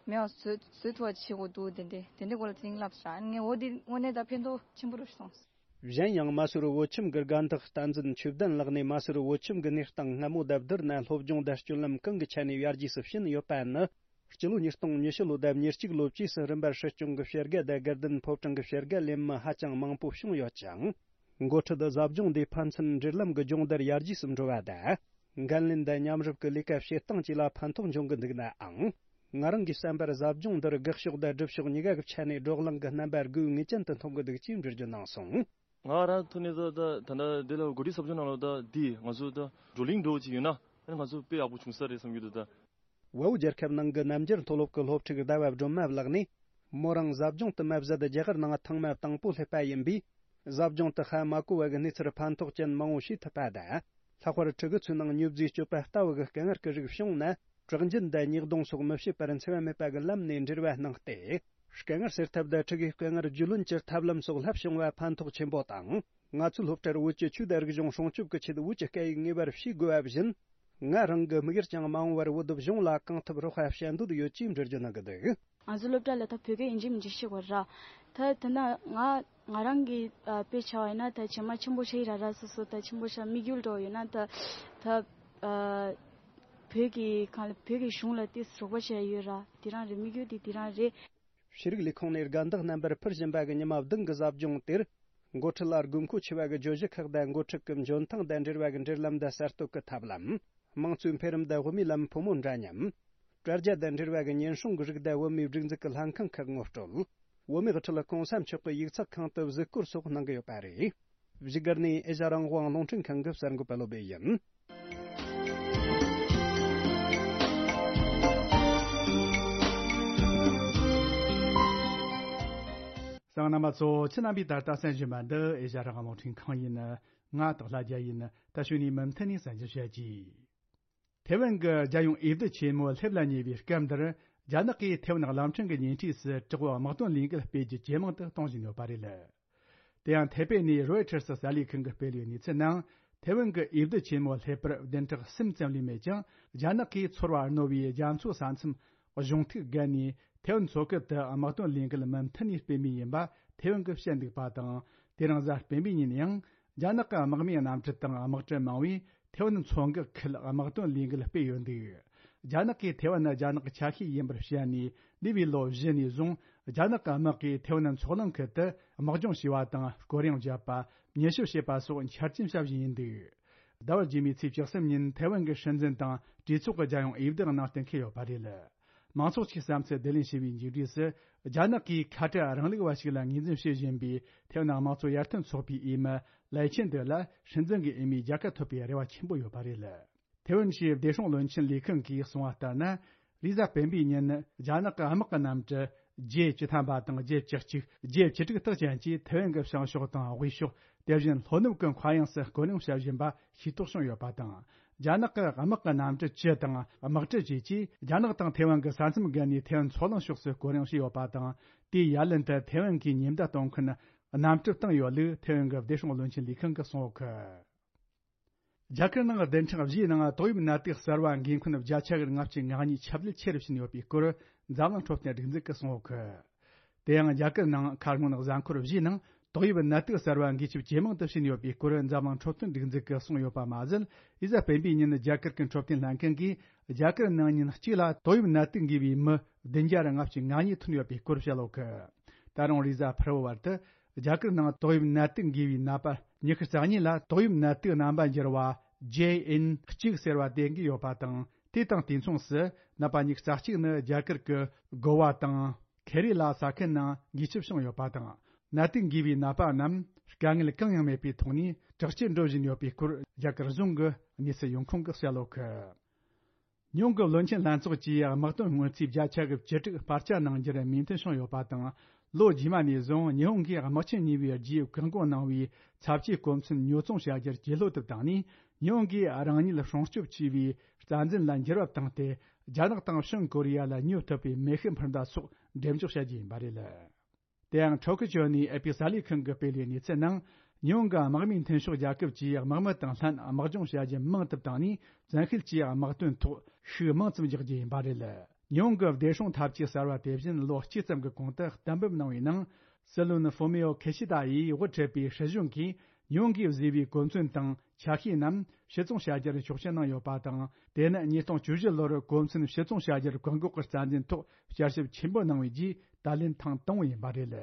མེད་པ་བཟོ་བཟོ་ཐུབ་པ་བྱེད་དགོས་འདུག་དེ་འདྲས་དེ་འདྲས་སྐོར་ལ་དེ་རིང་ལབ་ས་ར། ཨ་ནི་ངས་འོ་འདི་དངོས་གནས་ད་ཕན་ཐོགས་ཆེན་པོ་རེད་སོང་། གཞན་ཡང་མ་སུར་བོད་ཁྱིམ་གྱི་དགའ་འདག་བསྟན་འཛིན་ཆོས་ལྡན་ལགས་ནས་མ་སུར་བོད་ཁྱིམ་གྱི་གནས་སྟངས་སྔ་མོ་དང་བསྡུར་ན་སློབ་སྦྱོང་དང་སྤྱོད་ལམ་གང་གི་ཆ་ནས་ཡར་རྒྱས་སུ་ཕྱིན་ཡོད་པ་ནི། སྤྱི་ལོ་ཉིས་སྟོང་ཉི་ཤུ་ལོ་དང་ཉེར་གཅིག་ལོ་བཅས་སུ་རིམ་པར་སྲིད་སྐྱོང་གི་བྱེད་དགའ་དང་དགའ་ལྡན་ཕོ་བྲང་གི་བྱེད་དགའ་ལེན་མི་ཧ་ཅང་མང་པོ་བྱུང་ཡོད་ཅིང་། འགོ་ཁྲིད་ཟབ་སྦྱོང་འདིས་ཕན་ཚུན་འབྲེལ་ལམ་གྱི་སྦྱོང་བརྡར་ཡར་རྒྱས་སུ་འགྲོ་བ་དང་། འགན་ལེན་དང་མཉམ་རུབ་ཀྱི་ལས་ཀ་བྱེད་སྟངས་བཅས་ལ་ཕན་ཐོགས་འབྱུང་གི་འདུག་ནའང་། ང་རང་གི་བསམ་པར་ཟབ་སྦྱོང་འདིར་དགག་ཕྱོགས་དང་སྒྲུབ་ཕྱོགས་གཉིས་ཀ་གི་ཆ་ནས་བགྲོ་གླེང་གི་རྣམ་པ་དགོས་ངེས་ཅན་དུ་མཐོང་གི་འདུག་ཅེས་འགྲེལ་བརྗོད་གནང་སོང་། ང་རང་ཐོག་ནས་ད་ད་ད་ལྟ་འདི་ལ་འགོ་ཁྲིད་ཟབ་སྦྱོང་ནང་ལ་ད་འདི་ང་ཚོ་ད་བགྲོ་གླེང་འགྲོ་བ་ཅིག་ཡོད་ན་ཨ་ནི་ང་ཚོ་དཔེ་ཡག་པོ་བྱུང་ས་རེད་བསམ་གྱི་འདུག་ད། བལ་པོ་རྒྱལ་ཁབ་ནང་གི་རྣམ་རྒྱལ་མཐོ་སློབ་ཀྱི་སློབ་ཕྲུག་ཟླ་བ་སྒྲོལ་མ་ལགས་ནས། མོ་རང་ཟབ་སྦྱོང་དུ་མ་བཟོད་རྒྱ་གར་ནང་ཐེངས་མ་དང་པོ་སླེབས་པ་ཡིན་པས། ཟབ་སྦྱོང་དུ་ཧ་མ་གོ་བ་གི་གནས་ཚུལ་ཕན་ཐོགས་ཅན་མང་བོ་ཤེས་ཐུབ་པ་དང་། ལྷག་པར་ཕྲུ་གུ་ཚོའི་ནང་མྱོས་རྫས་སྤྱོད་པ་ལྟ་བུ་གི་དཀའ་ངལ་གྱི་རིགས་བྱུང་ན། དྲག་འཇུན་དང་ཉེས་རྡུང་སོགས་མི་བྱེད་པར་འཚེ་བ་མེད་པ་གི་ལམ་ནས་འབྲེལ་བ་གནང་སྟེ། དཀའ་ངལ་སེལ་ཐབས་དང་ཕྲུ་གུའི་དཀའ་ངལ་རྒྱུས་ལོན་གྱི་ཐབས་ལམ་སོགས་བསླབ་བྱུང་བ་ཕན་ཐོགས་ཆེན་པོ་དང་། ང་ཚོའི་སློབ་གྲྭར་བོད་ཀྱི་ཆོས་དང་རིག་གཞུང་སྲུང་སྐྱོབ་ཀྱི་ཆེད་བོད་ཀྱི་སྐད་ཡིག་ངེས་པར་ཤེས་དགོས་པ་བཞིན། ང་རང་གི་དམིགས་ཡུལ་ཀྱང་མ་འོངས་པར་བོད་གཞུང་ལ་གང་ཐུབ་རོགས་པ་བྱ་འདོད་ཡོད་ཅེས་འགྲེལ་བརྗོད་གནང་གི་འདུག་ང་ཚོའི་སློབ་གྲྭ་ལ་ད་བོད་སྐད་ཡིན་གཅིག་མིན་གཅིག་ཤེས་དགོས་ར། ད་ད་ན་ང་ང་རང་གི་ཨ་དཔེ་ཆ་བ་ཡིན་ན་ད་ཇེ་མ་ཆེན་པོ་ཆགས་ཡི་ར་ར། སོ་སོ་ད་ཆེན་པོ་ཆགས་དམིགས་ཡུལ་འགྲོ་ཡོད་ན་ད་ད་ཨ་བོད་ཀྱི་གང་ལ་བོད་ཀྱི་གཞུང་ལ་ཏོག་ཙམ་རོགས་པ་བྱས་ཡོད་ར། དེ་རང་རེད། དམིགས་ཡུལ་དེ་དེ་རང་རེད། ཤེས་རིག་ལས་ཁུངས་ནས་དགའ་འདག་རྣམ་པར་ཕུལ་བཞིན་པ་གི་ཉི་མ་བདུན་གྱི་ཟབ་སྦྱོང་དེར། འགོ་ཁྲིད་ལ་དགོས་མཁོ་ཆེ་བ་གི་བརྗོད་གཞི་ཁག་དང་འགོ་ཁྲིད་ཀྱི་འཇོན་ཐང་དང་འབྲེལ་བ་གི་འབྲེལ་ལམ་དང་གསར་གཏོད་ཀྱི་ཐབས་ལམ། དམངས་གཙོའི་འཕེལ་རིམ་དང་བུད་མེད་ལམ་ཕོ་མོ་འདྲ་མཉམ། དྲ་རྒྱ་དང་འབྲེལ་བ་གི་ཉེན་སྲུང་གི་རིགས་དང་བུད་མེད་སྒྲིག་འཛུགས་ཀྱི་ལྷན་ཁང་ཁག་ངོ་སྤྲོད། བུད་མེད་ཀྱི་ཁྲི་ལ་གོང་ས་མཆོག་གི་ཡིག་ཚགས་ཁང་དུ་གཟིགས་སྐོར་སོགས་གནང་གི་ཡོད་པ་རེད། བཞུགས་སྒར་ནས་ཨེ་ཤ་རང་དབང་རླུང་འཕྲིན་ཁང་གི་གསར་འགོད་པ་བློ་བྷེ་ཡིན། གསན་མཁན་རྣམ་པ་ཚོ། ཁྱེད་རྣམ་པས་ད་ལྟ་གསན་བཞིན་པ་འདི་ཨེ་ཤ་རང་དབང་རླུང་འཕྲིན་ཁང་ཡིན། ང་སྟག་ལྷ་རྒྱལ་ཡིན། ད་གཞུག་ནས་མུ་མཐུད་ནས་གསན་རྒྱུ་བྱ་རྒྱུ། ཐེ་ཝན་གྱི་རྒྱལ་ཡོངས་འོས་བསྡུ་ཆེན་མོ་སླེབས་ལ་ཉེ་བའི་སྐབས་འདིར། རྒྱ་ནག་གིས་ཐེ་ཝན་གླིང་ཕྲན་གྱི་ཉེ་འཁྲིས་སུ་དྲག་པོའི་དམག་དོན་ལས་འགུལ་སྤེལ་རྒྱུ་ཇེ་མང་དུ་གཏོང་བཞིན་ཡོད་པ་རེད། དེ་ཡང་ཐེ་པེ་ནས་རོའི་ཊར་སི་གསར་ལས་ཁང་གིས་སྤེལ་བའི་གནས་ཚུལ་ནང་། ཐེ་ཝན་གྱི་འོས་བསྡུ་ཆེན་མོ་སླེབས་པར་བདུན་ཕྲག་གསུམ་ཙམ་ལས་མེད་ཀྱང་། རྒྱ་ནག་གིས་ཚོར་བ་རྣོ་བའི་རྒྱ་མཚོའི་ས་མཚམས་གཞུང་ཐིག་བརྒལ་ནས་ཐེ་ཝན་མཚོ་ཁུལ་དུ་དམག་དོན་ལས་འགུལ་མུ་མཐུད་ནས་སྤེལ་མུས་ཡིན་པ་ཐེ་ཝན་གྱིས་བཤད་འདུག་པ་དང་། དེ་རིང་གཟའ་སྤེན་པའི་ཉིན་ཡང་། རྒྱ་ནག་གི་དམག་མིའི་གནམ་གྲུ་དང་དམག་གྲུ་མང་བོས་ཐེ་ཝན་མཚོ་འགག་ཁུལ་དམག་དོན་ལས་འགུལ་སྤེལ་ཡོད་འདུག་རྒྱ་ནག་གིས་ཐེ་ཝན་ནི་རྒྱ་ནག་གི་ཆ་ཤས་ཡིན་པར་བཤད་ནས། འདས་པའི་ལོ་བཞི་ནས་བཟུང་རྒྱ་ནག་གི་དམག་གིས་ཐེ་ཝན་མཚོ་གླིང་ཁུལ་དུ་དམག་སྦྱོང་བྱས་པ་དང་། སྐོར་གཡེང་བརྒྱབ་པ། མྱུལ་ཞིབ་བྱས་པ་སོགས་འཆར་ཅན་བྱ་བཞིན་ཡིན་འདུག་ཟླ་བ་རྗེས་མའི་ཚེས་བཅུ་གསུམ་ཉིན་ཐེ་ཝན་གྱི་སྲིད་འཛིན་དང་གྲོས་ཚོགས་ཀྱི་རྒྱལ་ཡོངས་འོས་བསྡུ་ནང་གཏན་འཁེལ་ཡོད་པ་རེད། མང་ཚོགས་ཀྱི་བསམ་ཚུལ་བསྡུ་ལེན་བྱས་པའི་མཇུག་འབྲས་སུ། རྒྱ་ནག་གིས་ཁ་བྲལ་རིང་ལུགས་པ་ཞིག་ལ་ངོས་འཛིན་བྱེད་བཞིན་པའི་ཐེ་ཝན་དམངས་གཙོ་ཡར་ཐོན་ཚོགས་པའི་འོས་མི་ལའེ་ཆན་ཏེ་ལ་སྲིད་འཛིན་གྱི་འོས་མིའི་རྒྱལ་ཁ་ཐོབ་པའི་རེ་བ་ཆེན་པོ་ཡོད་པ་རེད། ཐེ་ཝན་ཞེས་བདེ་སྲུང་བློན་ཆེན་ལས་ཁང་གིས་གསུངས་པ་ལྟར་ན། རེས་གཟའ་སྤེན་པའི་ཉིན་རྒྱ་ནག་གི་དམག་གི་གནམ་གྲུ་ཇེ་བཅུ་ཐམ་པ་དང་ཇེ་བཅུ་གཅིག་ཇེ་བཅུ་དྲུག་དག་ཅན་གྱིས་ཐེ་ཝན་གྱི་བྱང་ཕྱོགས་དང་དབུས་ཕྱོགས། དེ་བཞིན་ལྷོ་ནུབ་ཀྱི་མཁའ་དབྱིངས་སུ་སྐོར་གཡེང་བྱ་བཞིན་པ་ཤེས་རྟོགས་བྱུང་ཡོད་པ་དང་། རྒྱ་ནག་གི་དམག་གི་གནམ་གྲུ་བཅུ་དང་དམག་གྲུ་བཅས་ཀྱིས་རྒྱ་ནག་དང་ཐེ་ཝན་གྱི་ས་མཚམས་བརྒལ་ནས་ཐེ་ཝན་མཚོ་གླིང་ཕྱོགས་སུ་སྐོར་གཡེང་བྱས་ཡོད་པ་དང་། དེའི་ཡ་ལན་དུ་ཐེ་ཝན་གྱི་ཉེན་བརྡ་གཏོང་མཁན་གནམ་གྲུ་བཏང་ཡོད་ལུགས་ཐེ་ཝན་གྱི་བདེ་སྲུང་བློན་ཆེན་ལས་ཁང་གིས་གསུངས་ཡོད་གི། རྒྱ་གར་ནང་བདུན་ཕྲག་བཞིའི་ནང་ཏོག་དབྱིབས་ནད་དུག་གསར་བ་འགོས་མཁན་བརྒྱ་ཆ་ལྔ་བཅུ་ང་གཉིས་ཁྱབ་གདལ་ཆེ་རུ་ཕྱིན་ཡོད་པའི་སྐོར་འཛམ་གླིང་འཕྲོད་བསྟེན་སྒྲིག་འཛུགས་ཀྱིས་གསུངས་ཡོད་གི། དེ་ཡང་རྒྱ་གར་ནང་ཁ་སྔོན་གཟའ་འཁོར་བཞིའི་ནང་ཏོག་དབྱིབས་ནད་དུག་གསར་བ་འགོས་ཁྱབ་ཇེ་མང་དུ་ཕྱིན་ཡོད་པའི་སྐོར་འཛམ་གླིང་འཕྲོད་བསྟེན་སྒྲིག་འཛུགས་ཀྱིས་གསུངས་ཡོད་པ་མ་ཟད། རེས་གཟའ་སྤེན་པའི་ཉིན་རྒྱ་གར་གྱི་འཕྲོད་བསྟེན་ལྷན་ཁང་གིས་རྒྱ་གར་ནང་ཉིན་གཅིག་ལ་ཏོག་དབྱིབས་ནད་དུག་འགོས་པའི་མི་བདུན་བརྒྱ་ལྔ་བཅུ་ང་གཉིས་ཐོན་ཡོད་པའི་སྐོར་བཤད་ཡོད་གི། ད་རུང་རེས་གཟའ་ཕུར་བུ་བར་དུ་རྒྱ་གར་ནང་ཏོག་དབྱིབས་ནད་དུག་འགོས་པའི་ནད་པ་ཉི་ཤུ་རྩ་གཉིས་ལ་ཏོག་དབྱིབས་ནད་དུག་རྣམ་པ་འགྱུར་བ་ཇེ་ཨེན་གཅིག་ཟེར་བ་དེ་འགོས་ཡོད་པ་དང་། དེ་དང་དུས་མཚུངས་སུ་ནད་པ་ཉི་ཤུ་རྩ་གཅིག་ནི་རྒྱ་གར་གྱི་གོ་བ་དང་ ཁེ་རི་ལ་ས་ཁུལ་ནང་འགུལ་སྐྱོད་བྱུང་ཡོད་པ་དང་། ནད་དུག་འགོས་པའི་ནད་པ་རྣམས་དཀའ་ངལ་གང་ཡང་མེད་པའི་ཐོག་ནས་དྲག་སྐྱེད་འགྲོ་བཞིན་ཡོད་པའི་སྐོར་རྒྱ་གར་གཞུང་གི་གནས་ཚུལ་ཡོང་ཁུངས་ཀྱིས་གསལ་བོ་ཁུར། ཉེ་འོང་གི་བློན་ཆེན་ལྷན་ཚོགས་ཀྱིས་དམག་དོན་སྔོན་རྩིས་བརྒྱ་ཆ་གི་བཅུ་དྲུག་སྤར་ཆ་གནང་རྒྱུར་མོས་མཐུན་བྱུང་ཡོད་པ་དང་། ལོ་རྗེས་མ་ནས་བཟུང་ཉི་ཧོང་གིས་དམག་ཆེན་གཉིས་པའི་རྗེས་བཀག་འགོག་གནང་བའི་ཚབས་ཆེའི་གོ་མཚོན་ཉོ་ཚོང་བྱ་རྒྱུར་བསྐྱོད་ལོ་དུ་བཏང་ནས། ཉི་ཧོང་གིས་རང་ཉིད་སྲུང་སྐྱོབ་བྱེད་པའི་རྩ་འཛིན་ལ་འགྱུར་བ་བཏང་སྟེ། རྒྱ་ནག་དང་བྱང་ཀོ་རི་ཡ་ལ་ཉོ་ཐུབ་པའི་མེ་ཤུགས་འཕུར་མདའ་སོགས་འགྲེམས་འཇོག་བྱ་རྒྱུ་ཡིན་པ་རེད། དེ་ཡང་ཊོ་ཀི་ཅོ་ནས་ཨེ་པི་གསར་ལས་ཁང་གིས་སྤེལ་བའི་གནས་ཚུལ་ནང་། ཉེ་འོང་གི་དམག་མིའི་མཐུན་ཕྱོགས་རྒྱལ་ཁབ་ཀྱིས་དམག་མི་དང་ལྷན་དམག་སྦྱོང་བྱ་རྒྱུ་མང་དུ་བཏང་ནས། བཙན་ཤེད་ཀྱིས་དམག་དོན་ཐོག་ཤུགས་མང་ཙམ་རྒྱག་རྒྱུ་ཡིན་པ་རེད། ཉེ་འོང་གི་བདེ་སྲུང་འཐབ་ཇུས་གསར་བ་དེ་བཞིན་ལོ་གཅིག་ཙམ་གྱི་གོང་དུ་གཏན་འབེབས་གནང་བའི་ནང་། སྲིད་བློན་ཧྥུ་མི་ཡོ་ཁི་ཤི་ད་ཡིས་དབུ་ཁྲིད་པའི་སྲིད་གཞུང་གིས་ཉེ་འོང་གིས་བཟོས་པའི་གོ་མཚོན་དང་ཆ་ཤས་རྣམས་ཕྱིར་ཚོང་བྱ་རྒྱུར་ཆོག་མཆན་གནང་ཡོད་པ་དང་། དེ་ནི་ཉིས་སྟོང་བཅུ་བཞི་ལོར་གོ་མཚོན་ཕྱིར་ཚོང་བྱ་རྒྱུར་བཀག་འགོག་གི་རྩ་འཛིན་ཐོག་བསྐྱར་ཞིབ་ཆེན་པོ་གནང་བའི་རྗེས་ད་ལན་ཐེངས་དང་པོ་ཡིན་པ་རེད།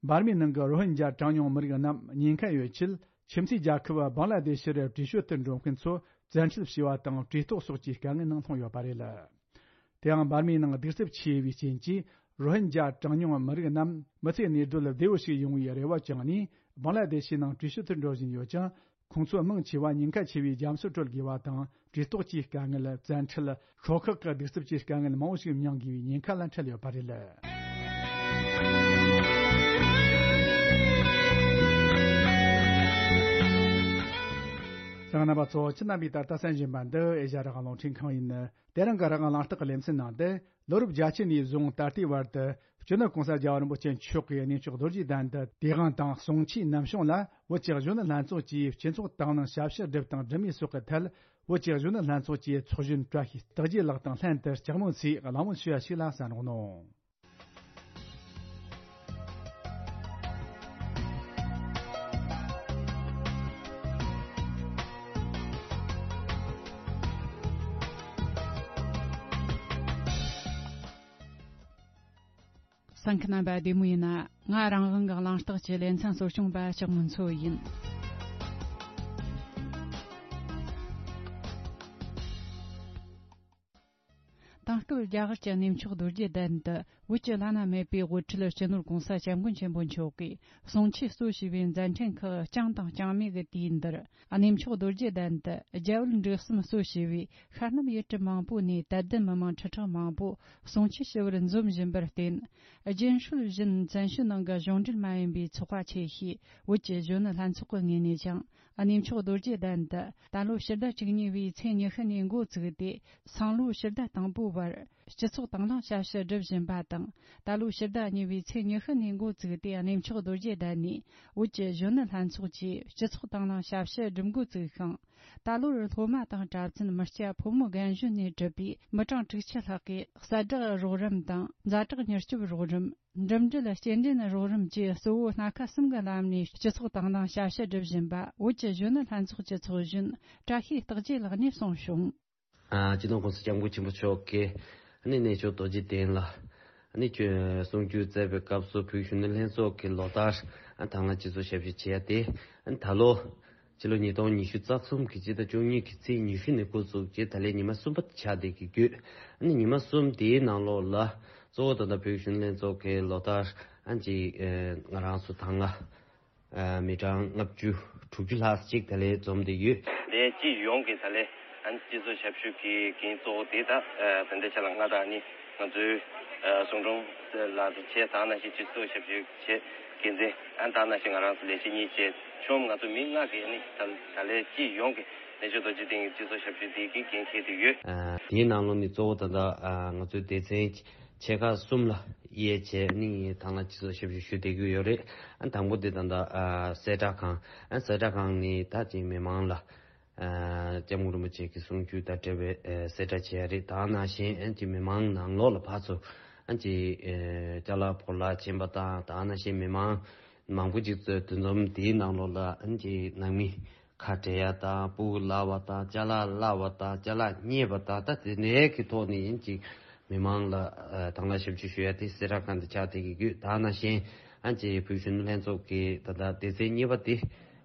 འབར་མའི་ནང་གི་རོ་ཧིན་ཇཱ་གྲངས་ཉུང་མི་རིགས་རྣམས་ཉེན་ཁ་ཡོད་ཆེད། ཁྱིམ་མཚེས་རྒྱལ་ཁབ་བང་ལ་དེ་ཤི་རུ་བྲོས་བྱོལ་དུ་འགྲོ་མཁན་ཚོ་བཙན་ཁྲིད་བྱས་པ་དང་། བྲོས་ལྟོགས་སོགས་ཀྱི་དཀའ་ངལ་ནང་ལྷུང་ཡོད་པ་རེད། དེའང་འབར་མའི་ནང་གདུག་རྩུབ་ཆེ་བའི་རྐྱེན་གྱིས། རོ་ཧིན་ཇཱ་གྲངས་ཉུང་མི་རིགས་རྣམས་མི་ཚེ་གནས་སྡོད་བདེ་བོ་ཞིག་ཡོང་བའི་རེ་བ་བཅངས་ནས། བང་ལ་དེ་ཤི་ནང་བྲོས་བྱོལ་དུ་འགྲོ་བཞིན་ཡོད་ཀྱང་། ཁོང་ཚོ་མང་ཆེ་བ་ཉེན་ཁ་ཆེ་བའི་རྒྱ་མཚོ་བགྲོད་དགོས་པ་དང་། བྲོས་ལྟོགས་ཀྱི་དཀའ་ངལ། བཙན་ཁྲིད། ཤོག་ཁག་གི་གདུག་རྩུབ་ཀྱི་དཀའ་ངལ་མང་བོ་ཞིག་མྱངས་དགོས་པའི་ཉེན་ཁ་ལ་འཕྲད་ཡོད་པ་རེད། གསན་མཁན་རྣམ་པ་ཚོ། ཁྱེད་རྣམ་པས་ད་ལྟ་གསན་བཞིན་པ་འདི་ཨེ་ཤ་ཡ་རང་དབང་རླུང་འཕྲིན་ཁང་ཡིན། དེ་རིང་གི་རང་དབང་གླེང་སྟེགས་ཀྱི་ལེ་ཚན་ནང་དུ། ལོ་རབས་བརྒྱད་ཅུ་ནས་བཟུང་ད་ལྟའི་བར་དུ་སྤྱི་ནོར་༸གོང་ས་༸རྒྱལ་བ་རིན་པོ་ཆེ་མཆོག་གིས་གནས་མཆོག་རྡོ་རྗེ་གདན་དུ་དུས་དབང་དང་གསུང་ཆོས་ནམ་བྱུང་ལ། བོད་ཀྱི་གཞོན་ནུ་ལྷན་ཚོགས་ཀྱིས་སྤྱི་ཚོགས་དང་བླངས་ཞབས་ཞུ་བསྒྲུབས་དང་སྒྲུབ་མུས་སོགས་ཀྱི་ཐད། བོད་ཀྱི་གཞོན་ནུ་ལྷན་ཚོགས་ཀྱི་ཚོགས་གཞོན་བཀྲ་ཤིས་རྟགས་བརྒྱད་ལགས་དང་ལྷན་དུ་ལྕགས་མོ་ཚོས་གླེང་མོལ་ཞུ་བ་ཞིག་ལ་གསན་རོགས་གནང་། གསན་མཁན་རྣམ་པ་བདེ་མོ་ཡིན་ན། ང་རང་དབང་གི་གླེང་སྟེགས་ཀྱི་ལེ་ཚན་གཙོ་སྐྱོང་པ་ལྕགས་མོ་མཚོ་ཡིན། དེང་སྐབས་རྒྱ་གར་གྱི་གནས་མཆོག་རྡོ་རྗེ་གདན་དུ་བོད་ཀྱི་བླ་ན་མེད་པའི་དབུ་ཁྲིད་སྤྱི་ནོར་༸གོང་ས་༸སྐྱབས་མགོན་ཆེན་པོ་མཆོག་གིས་གསུང་ཆོས་གཙོ་བྱས་པའི་མཛད་འཕྲིན་ཁག་བསྐྱངས་དང་བསྐྱངས་མུས་ཀྱི་དུས་འདིར། གནས་མཆོག་རྡོ་རྗེ་གདན་དུ་རྒྱ་བོད་འབྲེལ་ཟམ་གཙོ་བྱས་པའི་ཤར་རྣམ་ཡུལ་གྲུ་མང་པོ་ནས་དད་ལྡན་མི་མང་ཁྲི་ཕྲག་མང་པོ་གསུང་ཆོས་ཞུ་བར་འཛོམས་བཞིན་པར་བརྟེན། རྒྱུན་སྲོལ་བཞིན་བཙན་བྱོལ་ནང་གི་གཞུང་འབྲེལ་མ་ཡིན་པའི་ཚོགས་པ་ཆེ་ཤོས་བོད་ཀྱི་གཞོན་ནུ་ལྷན་ཚོགས་ཀྱི་ངོས་ནས་ཀྱང་། གནས་མཆོག་རྡོ་རྗེ་གདན་དུ་ད་ལོ་ཕྱི་ཟླ་བཅུ་གཉིས་པའི་ཚེས་ཉི་ཤུ་ནས་འགོ་བཙུགས་ཏེ། སང་ལོ་ཕྱི་ཟླ་དང་པོའི་བར་སྤྱི་ཚོགས་དང་བླངས་ཞབས་ཞུ་སྒྲུབ་བཞིན་པ་དང་། ད་ལོ་ཕྱི་ཟླ་གཉིས་པའི་ཚེས་ཉི་ཤུ་ནས་འགོ་བཙུགས་ཏེ། གནས་མཆོག་རྡོ་རྗེ་གདན་ནས་བོད་ཀྱི་གཞོན་ནུ་ལྷན་ཚོགས་ཀྱིས་སྤྱི་ཚོགས་དང་བླངས་ཞབས་ཞུ་སྒྲུབ་འགོ་བཙུགས་ཤིང་། ད་ལོར་སློབ་མ་དང་གྲྭ་བཙུན་མི་སྐྱ་ཕོ་མོ་རྒན་གཞོན་ནས་གྲུབ་པའི་མི་གྲངས་དྲུག་ཅུ་ལྷག་གིས་གསལ་བསྒྲགས་རོགས་རམ་དང་ཛ་དྲག་མྱུར་སྐྱོབ་རོགས་རམ། འགྲིམ་འགྲུལ་སྐྱེལ་འདྲེན་རོགས་རམ་བཅས་གཙོ་བོ་སྣ་ཁ་གསུམ་གྱི་ལམ་ནས་སྤྱི་ཚོགས་དང་བླངས་ཞབས་ཞུ་སྒྲུབ་བཞིན་པ་བོད་ཀྱི་གཞོན་ནུ་ལྷན་ཚོགས་ཀྱི་ཚོགས་གཞོན་བཀྲ་ཤིས་རྟགས་བརྒྱད་ལགས་ནས་གསུངས་བྱུང་། ཨ། སྤྱི་ནོར་༸གོང་ས་༸སྐྱབས་མགོན་ཆེན་པོ་མཆོག་གིས་ཨ་ནི་གནས་མཆོག་རྡོ་རྗེ་གདན་ལ་ཨ་ནི་གསུང་ཆོས་སྩལ་བའི་སྐབས་སུ། བོད་གཞོན་ནུ་ལྷན་ཚོགས་ཀྱིས་ལོ་ལྟར་ཨ་དང་བླངས་སྤྱི་ཚོགས་ཞབས་ཞུ་བྱེད་ཡ་དེ། ཨ་ནི་ད་ལོ་ཕྱི་ལོ་ཉིས་སྟོང་ཉི་ཤུ་རྩ་གསུམ་གྱི་སྤྱི་ཟླ་བཅུ་གཉིས་ཀྱི་ཚེས་ཉི་ཤུ་ནས་འགོ་བཙུགས་རྗེས་ད་ལན་ཉི་མ་གསུམ་པ་ཆགས་བསྡད་ཀྱི་ཡོད། ཨ་ནི་ཉི་མ་གསུམ་དེའི་ནང་ལོགས་ལ་གཙོ་བོ་ད་ལྟ་བོད་གཞོན་ནུ་ལྷན་ཚོགས་ཀྱིས་ལོ་ལྟར་ཨ་ཅིག་ཨ་ང་རང་ཚོ་དང་བླངས་ཨ་མི་གྲངས་ལྔ་བཅུ་དྲུག་ཅུ་ལྷག་ཅིག་ད་ལན་འཛོམས་བསྡད་ཡོད། དེ་སྤྱི་ཡོངས་ཀྱི་ད་ལན་ཨ་ནི་སྤྱི་ཚོགས་ཞབས་ཞུ་གི་འགན་གཙོ་བོ་དེ་ད་ད་ལྟའི་ཆ་ལ་ང་དང་ཨ་ནི་ང་ཚོའི་ཨ་གསུང་སྒྲོན་ལགས་དང་བཅས་དེ་ནང་བཞིན་སྤྱི་ཚོགས་ཞབས་ཞུ་བྱེད་འགན་འཛིན། ཨ་ནི་དེ་ནང་བཞིན་ང་རང་ཚོ་ལས་བྱེད་གཉིས་བཅས་ཆོམ་ང་ཚོ་མི་ལྔ་གིས་ཨ་ནི་ད་ད་ལན་སྤྱི་ཡོངས་ཀྱི་གནས་མཆོག་རྡོ་རྗེ་གདན་གྱི་སྤྱི་ཚོགས་ཞབས་ཞུ་དེ་གི་འགན་འཁྱེར་བསྡད་ཡོད། ཨ་དེའི་ནང་ལོགས་ནས་གཙོ་བོ་ད་ལྟ་ཨ་ང་ཚོའི་སྡེ་ཚན་ཆེ་ཁག་གསུམ་ལ་དབྱེ་བྱས་ནས་དང་བླངས་སྤྱི་ཚོགས་ཞབས་ཞུ་ཞུ་བསྡད་ཀྱི་ཡོད་རེད། ཨ་དང་པོ་དེ་ད་ལྟ་ཨ་གསལ་བསྒྲགས་ཁང་། ཨ་གསལ་བསྒྲགས་ཁང་ནས་ད་ཅིག་མི་མང་ལ། ཨ་སྐྱབས་མགོན་རིན་པོ་ཆེ་གི་གསུང་ཆོས་དང་འབྲེལ་བའི་ཨ་གསལ་བསྒྲགས་བྱས་རེད། དེ་ནང་བཞིན་ཨ་ཅིག་མི་མང་ནང་ལོགས་ལ་ཕར་ཚུར་ཨ་ཅིག་ཨ་ཅ་ལག་ཕོ་ལགས་ཕྱིན་པ་དང་། དེ་ནང་བཞིན་མི་མང་མང་པོ་ཅིག་ཚོས་འདུ་འཛོམས་དེའི་ནང་ལོགས་ལ་ཨ་ཅིག་ནང་མི་ཁ་བྲལ་ཡ་དང་། སྤུ་གུ་བརླག་པ་དང་། ཅ་ལག་བརླག་པ་དང་། ཅ་ལག་རྙེད་པ་དང་། ད་དེ་འདྲའི་གི་ཐོག་ནས་ཨ་ཅིག་མི་མང་ལ་ཨ་དང་བླངས་ཞབས་ཞུ་ཞུ་ཡ་དེ་གསལ་བསྒྲགས་ཁང་དུ་ཆགས་བསྡད་ཀྱི་ཡོད། དེ་ནང་བཞིན་ཨ་ཅིག་བོད་གཞོན་ནུ་ལྷན་ཚོགས་ཀྱི་ད་ལྟ་སྡེ་ཚན་གཉིས་པ་དེ་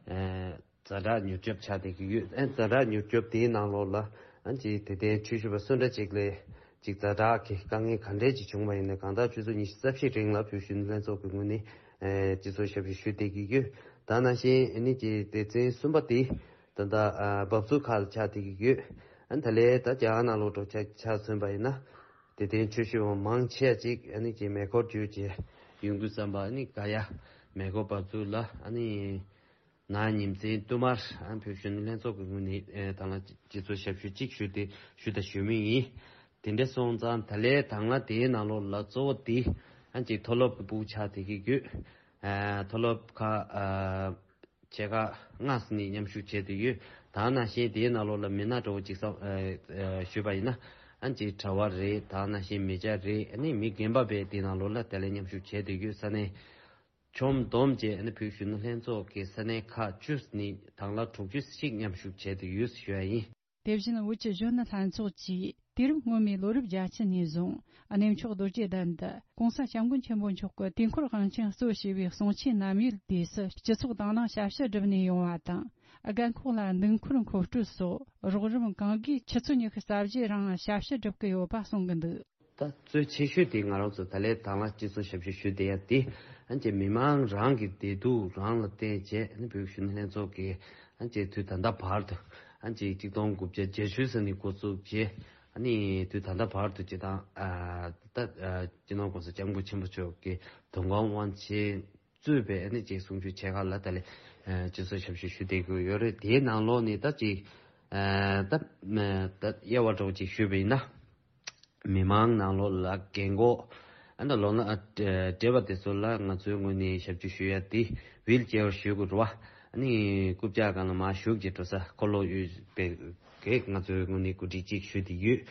ཨ་ཛ་དྲག་མྱུར་སྐྱོབ་ཆགས་བསྡད་ཀྱི་ཡོད། ཨ་ཛ་དྲག་མྱུར་སྐྱོབ་དེའི་ནང་ལོགས་ལ་ཨ་ཅིག་དད་ལྡན་ཆོས་ཞུ་བ་སུ་འདྲ་ཅིག་ལ་ ཅིག་ཛ་དྲག་གི་དཀའ་ངལ་ག་འདྲས་ཅིག་བྱུང་བ་ཡིན་ན་གང་ལྟར་ཆུ་ཚོད་ཉི་ཤུ་རྩ་བཞི་རིང་ལ་བོད་གཞོན་ནུ་ལྷན་ཚོགས་ཀྱི་ངོས་ནས་ཨེ་སྤྱི་ཚོགས་ཞབས་ཞུ་ཞུ་བསྡད་ཀྱི་ཡོད། ད་ནང་བཞིན་ཨ་ནི་ཀྱི་སྡེ་ཚན་གསུམ་པ་དེ་ད་ལྟ་ཨ་འབབ་ཚུགས་ཁག་ལ་ཆགས་བསྡད་ཀྱི་ཡོད། ཨ་ནི་ད་ལས་ད་རྒྱ་གར་ནང་ལོགས་འགྲོ་ཆ་ཆ་མཚོན་པ་ཡིན་ན་དེ་དོན་ཆོས་ཞུ་བ་མང་ཆེ་ཅིག་ཨ་ནི་ཀྱི་མེ་འཁོར་བརྒྱུད་བྱས་ཡོང་དུས་ཙམ་པ་ཨ་ནི་ག་ཡ་མེ་འཁོར་འབབ་ཚུགས་ལ་ཨ་ནི། ན་ཉིན་མཚན་བསྟུད་མར་ཨ་བོད་གཞོན་ནུ་ལྷན་ཚོགས་ཀྱི་ངོས་ནས་ཨེ་ད་ལ་སྤྱི་ཚོགས་ཞབས་ཞུ་གཅིག་ཞུ་སྟེ་ཞུ་དང་ཞུ་མུས་ཡིན། དེ་འདྲ་སོང་ཙང་ད་ལས་དང་བླངས་དེའི་ནང་ལོགས་ལ་གཙོ་བོ་དེ་ཨ་ཅིག་མཐོ་སློབ་ཀྱི་ཕྲུ་གུ་ཆགས་བསྡད་ཀྱི་ཡོད། ཨ་མཐོ་སློབ་ཁག་ཨ་ཆེ་ཁག་ལྔ་ཙམ་ནས་མཉམ་ཞུགས་བྱས་བསྡད་ཡོད། ད་ནང་བཞིན་དེའི་ནང་ལོགས་ལ་མི་སྣ་འདྲ་བོ་ཅིག་བསམ་ཨ་ཨ་ཞུས་པ་ཡིན་ན་ཨ་ཅིག་གྲྭ་བ་རེད། ད་ནང་བཞིན་མི་སྐྱ་རེད། ཨ་ནི་མི་རྒན་པ་བས་དེའི་ནང་ལོགས་ལ་དེ་ལ་མཉམ་ཞུགས་བྱས་བསྡད་ཡོད། ས་གནས། ཁྱོན་བསྡོམས་བྱས་ནས་བོད་གཞོན་ནུ་ལྷན་ཚོགས་ཀྱི་ས་གནས་ཁག་བཅུ་ནས་དང་བླངས་དྲུག་ཅུ་ཞིག་མཉམ་ཞུགས་བྱས་ཏེ་ཡོད་ཞུ་བ་ཡིན། དེ་བཞིན་བོད་ཀྱི་གཞོན་ནུ་ལྷན་ཚོགས་ཀྱིས་དུས་རབས་སྔོན་མའི་ལོ་རབས་བརྒྱད་ཅུ་ནས་བཟུང་གནས་མཆོག་རྡོ་རྗེ་གདན་དུ་༸གོང་ས་༸སྐྱབས་མགོན་ཆེན་པོ་མཆོག་གི་དུས་འཁོར་དབང་ཆེན་གཙོ་བྱས་པའི་གསུང་ཆོས་ནམ་ཡོད་དུས་སུ་སྤྱི་ཚོགས་དང་བླངས་ཞབས་ཞུ་བསྒྲུབས་ནས་ཡོང་བ་དང་། རྒན་འཁོགས་ལ་འདུག་འཁོར་མཁོ་སྤྲོད་སོགས་རོགས་རམ་གང་དགོས་ཆུ་ཚོད་ཉི་ཤུ་རྩ་བཞིའི་རིང་ཞབས་ཞུ་བསྒྲུབ་ཀྱི་ཡོད་པ་གསུང་གི་འདུག་ད་གཙོ་ཆེ་ཤོས་དེ་ང་རང་ཚོ་ད་ལས་དང་བླངས་སྤྱི་ཚོགས་ཞབས་ཞུ་ཞུ་བསྡད་ཡ་དེ་ཨ་ཅེ་མི་མང་རང་གི་བདེ་སྡུག་རང་ལ་བལྟས་བྱས་ཨ་ནི་བོད་གཞོན་ནུ་ལྷན་ཚོགས་ཀྱིས་ཨ་ཅེ་དུས་ད་ལྟ་བར་དུ་ཨ་ཅེ་གཅིག་སྟོང་དགུ་བརྒྱ་བརྒྱད་ཅུ་ཙམ་ནས་འགོ་བཙུགས་བྱས་ཨ་ནི་དུས་ད་ལྟ་བར་དུ་སྤྱི་བཏང་ཨ་ད་ཨ་སྤྱི་ནོར་༸གོང་ས་༸སྐྱབས་མགོན་ཆེན་པོ་མཆོག་གི་དུས་འཁོར་དབང་ཆེན་གཙོས་པའི་ཨ་ནི་ཅིག་གསུང་ཆོས་ཆེ་ཁག་ལ་ད་ལས་ཨ་སྤྱི་ཚོགས་ཞབས་ཞུ་ཞུ་བསྡད་ཀྱི་ཡོད་རེད། དེའི་ནང་ལོགས་ནས་ད་ཅིག་ཨ་ད་ཨ་ད་དབྱེ་བ་འདྲ་བོ་ཅིག་ཞུས་པ་ཡིན་ན། མི་མང་ནང་ལོགས་ལ་རྒན་འཁོགས་ཨ་ད་ལོ་ན་ཨ་བགྲེས་པ་དེ་ཚོ་ལ་ང་ཚོའི་ངོས་ནས་ཞབས་ཞུ་ཞུ་ཡ་དེ་ཝིལ་ཅེར་ཞུ་དགོས་རེད་བ། ཨ་ནི་རྐུབ་བཀྱག་སྒང་ལ་མར་ཞུགས་ཀྱི་འགྲོ་ས་འཁོར་ལོ་ཡོད་པའི་གེགས་ང་ཚོའི་ངོས་ནས་གོ་སྒྲིག་ཅིག་ཞུས་ཏེ་ཡོད།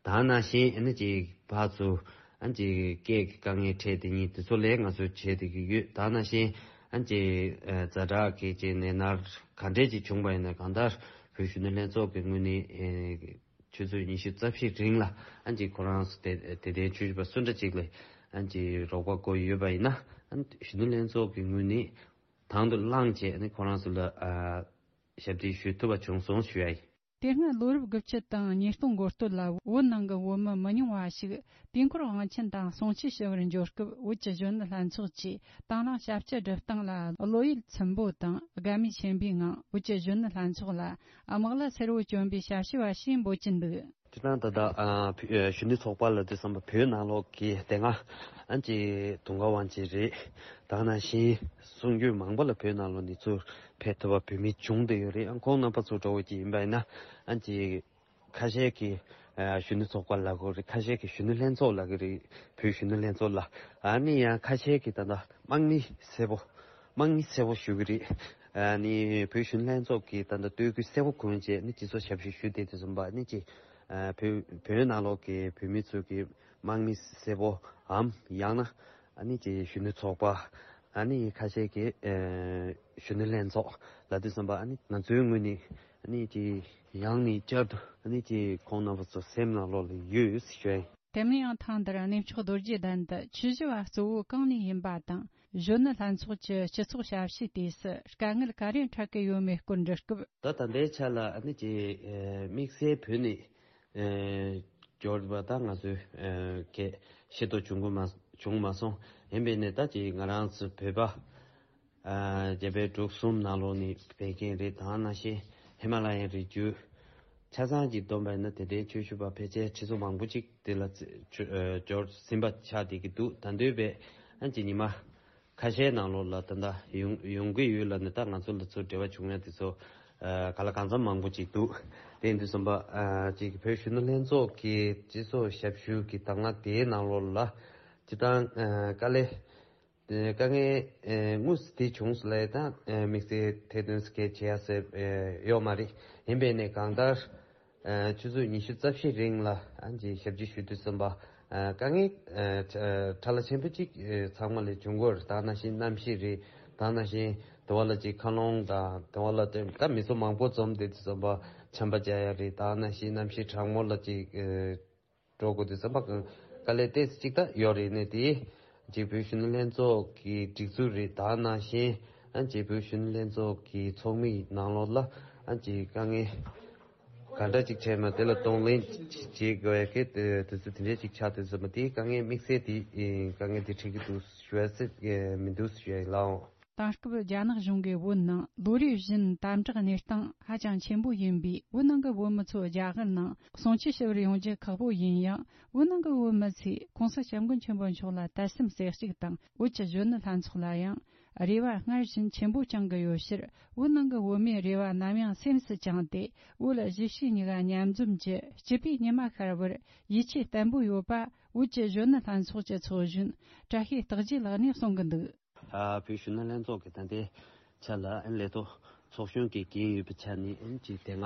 ད་ནང་བཞིན་ཨ་ནི་ཅིག་ཕར་ཚུར་ཨ་ནི་ཅིག་སྐད་ཀྱི་དཀའ་ངལ་འཕྲད་དེ་ཉིད་དེ་ཚོ་ལས་ང་ཚོས་བྱེད་བསྡད་ཀྱི་ཡོད། ད་ནང་བཞིན་ཨ་ནི་ཅིག་ཨ་ཛ་དྲག་གི་ཅིག་ནད་མནར་ག་འདྲས་ཅིག་བྱུང་བ་ཡིན་ན་གང་ལྟར་བོད་གཞོན་ནུ་ལྷན་ཚོགས་ཀྱི་ངོས་ནས་ཨེ་ཆུ་ཚོད་ཉི་ཤུ་རྩ་བཞིའི་རིང་ལ་ཨ་ནི་ཅིག་ཁོ་རང་ཚོ་དེ་དེ་དོན་ཆོས་ཞུ་བ་སུ་འདྲ་ཅིག་ལ་ཨ་ནི་ཅིག་རོགས་པ་དགོས་ཡོད་པ་ཡིན་ན་ཨ་ནི་གཞོན་ནུ་ལྷན་ཚོགས་ཀྱི་ངོས་ནས་དང་དུ་བླངས་བྱས་ཨ་ནི་ཁོ་རང་ཚོ་ལ་ཨ་ཞབས་འདེགས་ཞུ་ཐུབ་པ་བྱུང་སོང་ཞུ་ཡ་ཡིན། དེ་སྔ་ལོ་རབས་དགུ་བཅུ་དང་ཉིས་སྟོང་འགོ་སྟོད་ལ་བོད་ནང་གི་བོད་མི་མི་ཉུང་བ་ཞིག་དུས་འཁོར་དབང་ཆེན་དང་གསུང་ཆོས་ཞུ་བར་འབྱོར་སྐབས་བོད་ཀྱི་གཞོན་ནུ་ལྷན་ཚོགས་ཀྱིས་དང་བླངས་ཞབས་ཕྱི་སྒྲུབ་སྟངས་ལ་བློ་ཡིད་ཚིམ་པོ་དང་དགའ་མོས་ཆེན་པོའི་ངང་བོད་ཀྱི་གཞོན་ནུ་ལྷན་ཚོགས་ལ་དམག་ལྭ་སེར་བོ་གྱོན་པའི་ཞབས་ཞུ་བ་ཞེས་འབོད་ཀྱིན་འདུག་སྤྱིར་བཏང་ད་ལྟ་ཨ་བོད་ཨ་གཞོན་ནུ་ཚོགས་པ་ལབ་དུས་ཙམ་པ་བོད་ནང་ལོགས་ཀྱི་དེ་སྔ་ཨ་ཅེ་དུང་དཀར་དབང་ཆེན་རེད། ད་ནང་བཞིན་གསུང་རྒྱུན་མང་པོ་ལ་བོད་ནང་ལོགས་ནས་ཚུར་ཕེབས་ཐུབ་པ་བོད་མི་བྱུང་བསྡད་ཡོད་རེད། ཨ་ཁོང་རྣམ་པ་ཚོ་འདྲ་བོ་ཅིག་ཡིན་པ་ཡིན་ན་ཨ་ཅེ་ཁ་ཤས་ཀྱིས་ཨ་གཞོན་ནུ་ཚོགས་པ་ལབ་ཀྱི་རེད། ཁ་ཤས་ཀྱིས་གཞོན་ནུ་ལྷན་ཚོགས་ལབ་ཀྱི་རེད། བོད་གཞོན་ནུ་ལྷན་ཚོགས་ལ་ཨ་ནི་ཡང་ཁ་ཤས་ཀྱིས་ད་ལྟ་དམག་མི་སེར་པོ་དམག་མི་སེར་པོ་ཞུ་གི་རེད། ཨ་ནི་བོད་གཞོན་ནུ་ལྷན་ཚོགས་ཀྱི་ད་ལྟ་སྟོད་གོས་སེར་པོ་གོན་བྱས་ནི་སྤྱི་ཚོགས་ཞབས་ཞུ་ཞུ་བསྡད་དུས་ཙམ་པ་ནི་ཅིག་ཨ་བོད་བོད་ནང་ལོགས་ཀྱི་བོད་མི་ཚོ་གི་དམག་མི་སེར་པོའམ་ཡང་ན་ཨ་ནི་ཅིག་གཞོན་ནུ་ཚོགས་པ་ཨ་ནི་ཁ་ཤས་ཀྱིས་ཨ་གཞོན་ནུ་ལྷན་ཚོགས་ལབ་དུས་ཙམ་པ་ཨ་ནི་ང་ཚོའི་ངོས་ནས་ཨ་ནི་ཅིག་ཡང་ནས་བསྐྱར་དུ་ཨ་ནི་ཅིག་ཁོང་རྣམ་པ་ཚོ་སེམས་ནང་ལོགས་ལ་ཡོད་ཞུ་ཡ་ཡིན། དེ་མིན་ཡང་ཐེངས་འདིར་གནས་མཆོག་རྡོ་རྗེ་གདན་དུ་ཆོས་ཞུ་བ་གཙོ་བོ་གང་ནས་ཡིན་པ་དང་གཞོན་ནུ་ལྷན་ཚོགས་ཀྱི་སྤྱི་ཚོགས་ཞབས་ཕྱིའི་དུས་སུ་དཀའ་ངལ་ག་རེ་འཕྲད་ཀྱི་ཡོད་མེད་སྐོར་འདྲི་སྐབས། ད་ད་ལྟའི་ཆ་ལ་ཨ་ནི་ཅིག་ཨ་དམིགས་བསལ་བོད་ནས་ཨ་འབྱོར་བ་ད་ང་ཚོས་ཨ་གལ་ཤེས་རྟོགས་བྱུང་གི་མ་བྱུང་མ་སོང་། ཡིན་པས་ནས་ད་ཅིག་ང་རང་ཚོ་བོད་པ་ཨ་རྒྱ་བལ་འབྲུག་གསུམ་ནང་ལོགས་ནས་ཕེབས་མཁན་རེད། ད་ནང་བཞིན་ཧི་མ་ལ་ཡའི་རི་རྒྱུད་ཆ་ཚང་གཅིག་བསྡོམས་པ་ཡིན་ན་དེ་འདྲའི་ཆོས་ཞུ་བ་ཕལ་ཆེར་ཁྲི་ཚོ་མང་པོ་ཅིག་དེ་ལ་ཚེ་ཆོས་ཨ་འབྱོར་ཟིན་པ་ཆགས་བསྡད་ཀྱི་འདུག་ད་འདོད་པས་ཨ་ཅིག་ཉི་མ་ཁ་ཤས་ནང་ལོགས་ལ་ད་ལྟ་ཡོང་ཡོང་གི་ཡོད་ལབ་ནས་ད་ང་ཚོ་ལ་ཚུར་འབྲེལ་བ་བྱུང་ཡ་དེ་ཚོ་ཨ་ག་ལ་གང་འཚམ་མང་པོ་ཅིག་འདུག་དེ་ཡིན་དུས་ཙམ་པ་ཨ་ཅིག་བོད་གཞོན་ནུ་ལྷན་ཚོགས་ཀྱི་སྤྱི་ཚོགས་ཞབས་ཞུ་གི་དང་བླངས་དེའི་ནང་ལོགས་ལ་སྤྱིར་བཏང་ཨ་དཀའ་ལས། དེ་དཀའ་ངལ་ཨེ་དངོས་སུ་དེ་བྱུང་སོང་ལབ་ཡ་དང་ཨེ་དམིགས་བསལ་ཐེར་འདོན་སྐད་བྱེད་ཡ་ཟེར་ཨེ་ཡོད་མ་རེད། ཡིན་པས་ནས་གང་ལྟར་ཨེ་ཆུ་ཚོད་ཉི་ཤུ་རྩ་བཞི་རིང་ལ་ཨ་ཅེ་ཞབས་ཕྱི་ཞུ་དུས་ཙམ་པ་ཨེ་དཀའ་ངལ་ཨེ་ཕྲ་ལ་ཆེན་པོ་གཅིག་ཨེ་ཚང་མ་ལ་བྱུང་གི་ཡོད་རེད། ད་ནང་བཞིན་གནམ་གཤིས་རེད། ད་ནང་བཞིན་དེ་བ་ལ་ཅིག་མཁའ་རླུང་དང་དེ་བ་ལ་ད་མི་ཚོ་མང་པོ་འཛོམས་བསྡད་དུས་ཙམ་པ་ཆམ་པ་རྒྱག་ཡ་རེད། ད་ནང་བཞིན་གནམ་གཤིས་གྲང་མོ་ལ་ཅིག་ཨེ། འགྲོ་དགོས་དུས་ཙམ་པ་དཀའ་ལས་ཏོག་ཙམ་ཅིག་ད་ཡོད་རེད། ནས་དེ་རྗེས་བོད་གཞོན་ནུ་ལྷན་ཚོགས་ཀྱི་སྒྲིག་འཛུགས་རེད། ད་ནང་བཞིན་ཨ་རྗེས་བོད་གཞོན་ནུ་ལྷན་ཚོགས་ཀྱི་ཚོགས་མིའི་ནང་ལོགས་ལ་ཨ་ཅེ་དཀའ་ངལ་ གང་འདྲ་ཅིག་བྱས་ན་དེ་ལ་གདོང་ལེན་བྱེད་དགོས་ཡ་གི་དེ་དེ་ཚོ་དེ་འདྲ་ཅིག་ཆགས་དུས་ཙམ་པ་དེའི་དཀའ་ངལ་དམིགས་བསལ་དེ་དཀའ་ངལ་དེ་འཕྲད་ཀྱི་འདུག་ཞུ་ཡ་སྲིད་མི་འདུག་ཞུ་ཡ་ཡིན་ལགས། དེང་སྐབས་རྒྱ་ནག་གཞུང་གིས་བོད་ནང་ལོ་རེ་བཞིན་དམ་དྲག་གནས་སྟངས་ཧ་ཅང་ཆེན་པོ་ཡིན་པས། བོད་ནང་གི་བོད་མི་ཚོ་རྒྱ་གར་ནང་གསུང་ཆོས་ཞུ་བར་ཡོང་རྒྱུ་ཁག་པོ་ཡིན་ཡང་། བོད་ནང་གི་བོད་མི་ཚོས་༸གོང་ས་༸སྐྱབས་མགོན་ཆེན་པོ་མཆོག་ལ་དད་སེམས་གསལ་གཅིག་དང་། བོད་ཀྱི་གཞོན་ནུ་ལྷན་ཚོགས་ལ་ཡང་རེ་བ་སྔར་བཞིན་ཆེན་པོ་བཅངས་ཀྱི་ཡོད་ཕྱིར། བོད་ནང་གི་བོད་མིའི་རེ་བ་ནམ་ཡང་སེམས་སུ་བཅངས་ཏེ། བོད་གཞིས་བྱེས་གཉིས་ཀ་མཉམ་འཛོམས་ཀྱི་སྤྱི་པའི་ཉི་མ་ཤར་བར་ཡིད་ཆེས་བརྟན་པོ་ཡོད་པ། བོད་ཀྱི་གཞོན་ནུ་ལྷན་ཚོགས་ཀྱི་ཚོགས་གཞོན་བཀྲ་ཤིས་རྟག་རྒྱས་ལགས་ནས་གསུང་གི་འདུག། ཨ། བོད་གཞོན་ནུ་ལྷན་ཚོགས་ཀྱི་ད་ལྟའི་ཆ་ལ་ཨན་ལས་ཐོག་ཚོགས་གཞོན་གྱི་འགན་ཡོད་པའི་ཆ་ནས་ཨན་གྱི་དེ་སྔ་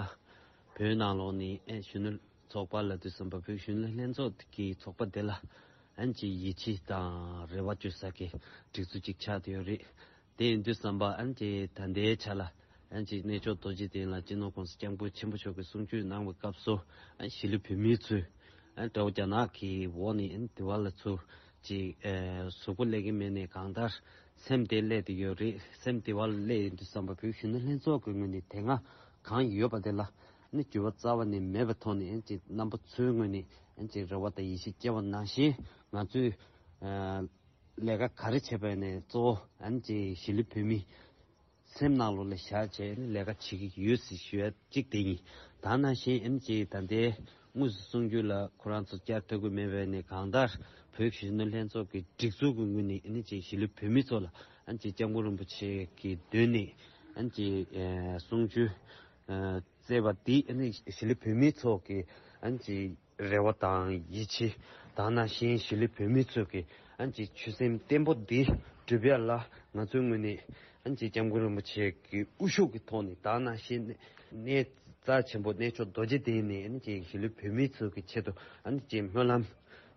བོད་ནང་ལོགས་ནས་ཨན་གཞོན་ནུ་ཚོགས་པ་ལབ་དུས་ཙམ་པ་བོད་གཞོན་ནུ་ལྷན་ཚོགས་ཀྱི་ཚོགས་པ་དེ་ལ་ཨན་གྱི་ཡིད་ཆེས་དང་རེ་བ་བཅོལ་ས་གི་སྒྲིག་འཛུགས་ཅིག་ཆགས་བསྡད་ཡོད་རེད། དེ་ཡིན་དུས་ཙམ་པ་ཨན་གྱི་ད་ལྟའི་ཆ་ལ་ཨན་གྱི་གནས་མཆོག་རྡོ་རྗེ་གདན་ལ་སྤྱི་ནོར་༸གོང་ས་༸སྐྱབས་མགོན་ཆེན་པོ་མཆོག་གིས་གསུང་ཆོས་གནང་བའི་སྐབས་སུ་ཨན་གཞིས་ལུས་བོད་མི་ཚོས། ཨ། དགྲ་བོ་རྒྱ་ནག་གི་འོག་ནས་ཨ་ནི་དེ་བ་ལ་ཚུར་ཅིག་ཨ་གཟུགས་པོ་སླེབས་ཀྱི་མེད་ནས་གང་ལྟར་སེམས་དེ་སླེབས་བསྡད་ཡོད་རེད། སེམས་དེ་བ་ལ་སླེབས་ཡོང་དུས་ཙམ་པ་བོད་གཞོན་ནུ་ལྷན་ཚོགས་ཀྱི་ངོས་ནས་དེ་སྔ་གང་ཡོད་པ་དེ་ལ་ཨ་ནི་འགྱུར་བ་རྩ་བ་ནས་མེད་པའི་ཐོག་ནས་ཨ་ནི་ཅིག་རྣམ་པ་ཚོའི་ངོས་ནས་ཨ་ནི་ཅིག་རེ་བ་དང་ཡིད་ཆེས་སྐྱེ་བ་ནང་བཞིན་ང་ཚོས་ཨ་ལས་ཀ་ག་རེ་བྱས་པ་ཡིན་ནའི་གཙོ་བོ་ཨ་ནི་ཅིག་གཞིས་ལུས་བོད་མི། སེམས་ནང་ལོགས་ལ་བཞག་བྱས་ནས་ལས་ཀ་བྱེད་ཀྱི་ཡོད་ཟེར་ཞུ་ཡ་གཅིག་དེ་ཡིན། ད་ནང་བཞིན་ཨ་ནི་ཅིག་ད་ལྟའི་དངོས་སུ་གསུང་རྒྱུ་ལ་ཁོ་རང་ཚོ་བསྐྱར་ཐོས་ཀྱི་མེད་པས་ནས་གང་ལྟར་བོད་ཀྱི་གཞོན་ནུ་ལྷན་ཚོགས་ཀྱི་སྒྲིག་འཛུགས་ཀྱི་ངོས་ནས་ཨ་ནི་ཅིག་གཞིས་ལུས་བོད་མི་ཚོ་ལ་ཨ་ནི་ཅིག་༸སྐྱབས་མགོན་རིན་པོ་ཆེ་གི་མདུན་ནས་ཨ་ནི་ཅིག་གསུང་ཆོས་བསྩལ་བ་འདི་ཨ་ནི་གཞིས་ལུས་བོད་མི་ཚོ་གི་ཨ་ནི་ཅིག་རེ་བ་དང་ཡིད་ཆེས་དང་ནང་བཞིན་གཞིས་ལུས་བོད་མི་ཚོས་ཀྱི་ཨ་ནི་ཅིག་ཆོད་སེམས་བརྟན་པོ་འདི་སྒྲུབ་ཡ་ལ་ང་ཚོའི་ངོས་ནས་ཨ་ནི་ཅིག་༸སྐྱབས་མགོན་རིན་པོ་ཆེ་གི་དབུ་བཞུགས་ཀྱི་ཐོག་ནས་དང་ནང་བཞིན་གནས་རྩ་ཆེན་པོ་གནས་མཆོག་རྡོ་རྗེ་གདན་ནས་ཨ་ནི་ཅིག་གཞིས་ལུས་བོད་མི་ཚོ་གི་ཆེད་དུ་ཨ་ནི་ཅིག་སྨོན་ལམ་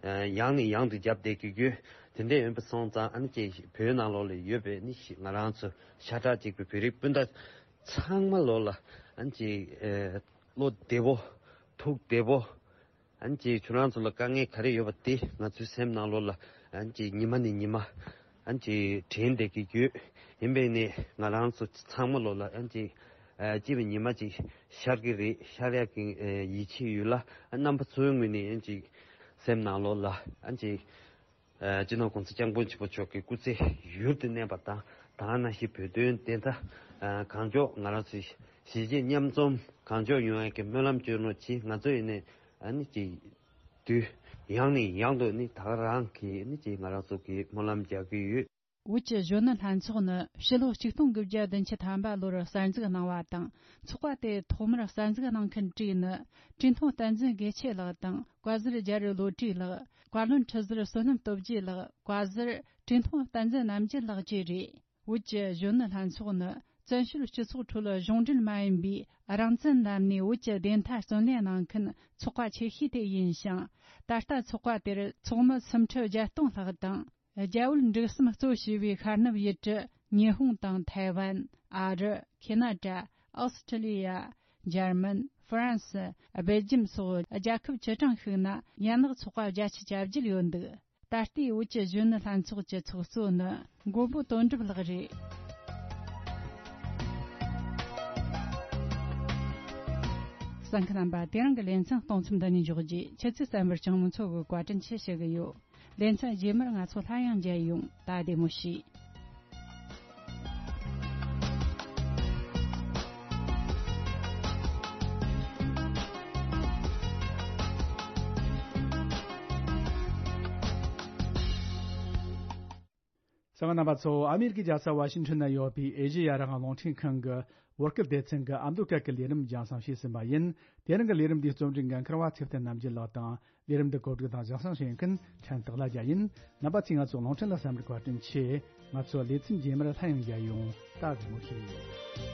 ཡང་ནས་ཡང་དུ་བརྒྱབ་བསྡད་ཀྱི་ཡོད། དེ་འདྲ་ཡིན་པ་སོང་ཙང་ཨ་ནི་ཅིག་བོད་ནང་ལོགས་ལ་ཡོད་པའི་ཨ་ནི་ང་རང་ཚོ་ཤ་ཁྲག་གཅིག་པའི་བོད་རིགས་སྤུན་ཟླ་ཚང་མ་ལོགས་ལ་ཨ་ནི་ཅིག་བློ་བདེ་པོ་ཐུགས་བདེ་པོ། ཨ་ནི་ཅིག་ཁྱོད་རང་ཚོ་ལ་དཀའ་ངལ་ག་རེ་ཡོད་པ་དེ་ང་ཚོའི་སེམས་ནང་ལོགས་ལ་ཨ་ནི་ཅིག་ཉི་མ་ནས་ཉི་མ་ཨ་ནི་ཅིག་དྲན་བསྡད་ཀྱི་ཡོད། ཡིན་པས་ནས་ང་རང་ཚོ་ཚང་མ་ལོགས་ལ་ཨ་ནི་ཅིག་ཨ་སྐྱིད་པའི་ཉི་མ་ཅིག་ཤར་གྱི་རེད། ཤར་ཡག་གི་ཨ་ཡིད་ཆེས་ཡོད་ལ། ཨ་རྣམ་པ་ཚོའི་ངོས་ནས་ཨ་ནི་ཅིག་སེམས་ནང་ལོགས་ལ་ཨ་ནི་ཅིག་ཨ་སྤྱི་ནོར་༸གོང་ས་༸སྐྱབས་མགོན་ཆེན་པོ་མཆོག་གི་སྐུ་ཚེ་ཡུན་དུ་གནས་པ་དང་། དེ་ནང་བཞིན་བོད་དོན་བདེན་མཐའ་ཨ་གང་མགྱོགས་ང་རང་ཚོའི་གཞིས་བྱེས་མཉམ་འཛོམས་གང་མགྱོགས་ཡོང་ཡག་གི་སྨོན་ལམ་སྐྱོན་རོགས་གྱིས། ང་ཚོ་ཡིན་ནའི་ཨ་ནི་ཅིག་དུས་ཡང་ནས་ཡང་དུ་ནི་ད་ག་རང་གི་ནི་ཅིག་ང་རང་ཚོ་གི་སྨོན་ལམ་རྒྱག་གི་ཡོད། བོད་ཀྱི་གཞོན་ནུ་ལྷན་ཚོགས་ནི་ཕྱི་ལོ་ཆིག་སྟོང་དགུ་བརྒྱ་བདུན་ཅུ་ཐམ་པ་ལོར་གསར་འཛུགས་གནང་བ་དང་། ཚོགས་པ་དེ་ཐོག་མར་གསར་འཛུགས་གནང་མཁན་གྲས་ནི། བཀྲས་མཐོང་བསྟན་འཛིན་དགེ་ཆེ་ལགས་དང་། བཀའ་ཟུར་རྒྱ་རི་བློ་གྲོས་ལགས། བཀའ་བློན་ཁྲི་ཟུར་བསོད་ནམས་སྟོབས་རྒྱས་ལགས། བཀའ་ཟུར་བཀྲས་མཐོང་བསྟན་འཛིན་རྣམ་རྒྱལ་ལགས་བཅས་རེད། བོད་ཀྱི་གཞོན་ནུ་ལྷན་ཚོགས་ནི་བཙན་བྱོལ་སྤྱི་ཚོགས་ཁྲོད་གཞུང་འབྲེལ་མ་ཡིན་པའི་རང་བཙན་ལམ་ནས་བོད་ཀྱི་བདེན་མཐའ་བརྩོན་ལེན་གནང་མཁན་ཚོགས་པ་ཆེ་ཤོས་དེ་ཡིན་ཞིང་། ད་ལྟ་ཚོགས་པ་དེར་ཚོགས་མི་སུམ་ཁྲི་བརྒྱད་སྟོང་ལྷག་དང་། རྒྱ་བོད་འབྲུག་གསུམ་གཙོ་བྱས་པའི་ཤར་ནུབ་ཡུལ་གྲུ་ཉི་ཧོང་དང་ཐའེ་ཝན། ཨ་རི། ཁེ་ན་ཌ། ཨོ་སི་ཁྲི་ལི་ཡ། འཇར་མན། ཧྥ་རན་སི། སྦེལ་ཇམ་སོགས་རྒྱལ་ཁབ་བཅུ་གྲངས་ཤིག་ན་ཡན་ལག་ཚོགས་པ་བརྒྱད་ཅུ་གྱ་བརྒྱད་ཡོད་འདུག། ད་ལྟའི་བོད་ཀྱི་གཞོན་ནུ་ལྷན་ཚོགས་ཀྱི་ཚོགས་གཙོ་ནི་མགོན་པོ་དོན་གྲུབ་ལགས་རེད། གསན་མཁན་རྣམ་པ། དེ་རིང་གི་ལེ་ཚན་གཏོང་མཚམས་འདི་ནས་འཇོག་རྗེས། ཆུ་ཚོད་གསན་པར་སྤྱང་མོ་མཚོ་གིས་བཀའ་དྲིན་ཆེ་ཞུ་གི་ཡོད། ལེ་ཚན་རྗེས་མར་ང་ཚོ་སླར་ཡང་མཇལ་ཡོང་། ད་བདེ་མོ་བྱོས། གསན་མཁན་རྣམ་པ་ཚོ། ཨ་མེ་རི་ཀའི་རྒྱལ་ས་ཝ་ཤིང་ཊོན་ན་ཡོད་པའི་ཨེ་ཤེ་ཡ་རང་དབང་རླུང་འཕྲིན་ཁང་གི་བོད་སྐད་སྡེ་ཚན་གྱི་ཨ་མདོ་སྐད་ཀྱི་ལས་རིམ་རྒྱང་སྲིང་བྱས་ཟིན་པ་ཡིན། དེ་རིང་གི་ལས་རིམ་འདིའི་རྩོམ་སྒྲིག་འགན་འཁུར་བ་ཚེ་བརྟན་རྣམ་རྒྱལ་ལགས་དང་། ལས་རིམ་འདི་གོ་སྒྲིག་དང་རྒྱང་སྲིང་བྱེད་མཁན་ཕྲན་སྟག་ལྷ་རྒྱལ་ཡིན། རྣམ་པ་ཚོས་ང་ཚོ་རླུང་འཕྲིན་ལ་གསན་པར་བཀའ་དྲིན་ཆེ། ང་ཚོ་ལེ་ཚན་རྗེས་མར་སླར་ཡང་མཇལ་ཡོང་། ད་བདེ་མོ་བྱོས།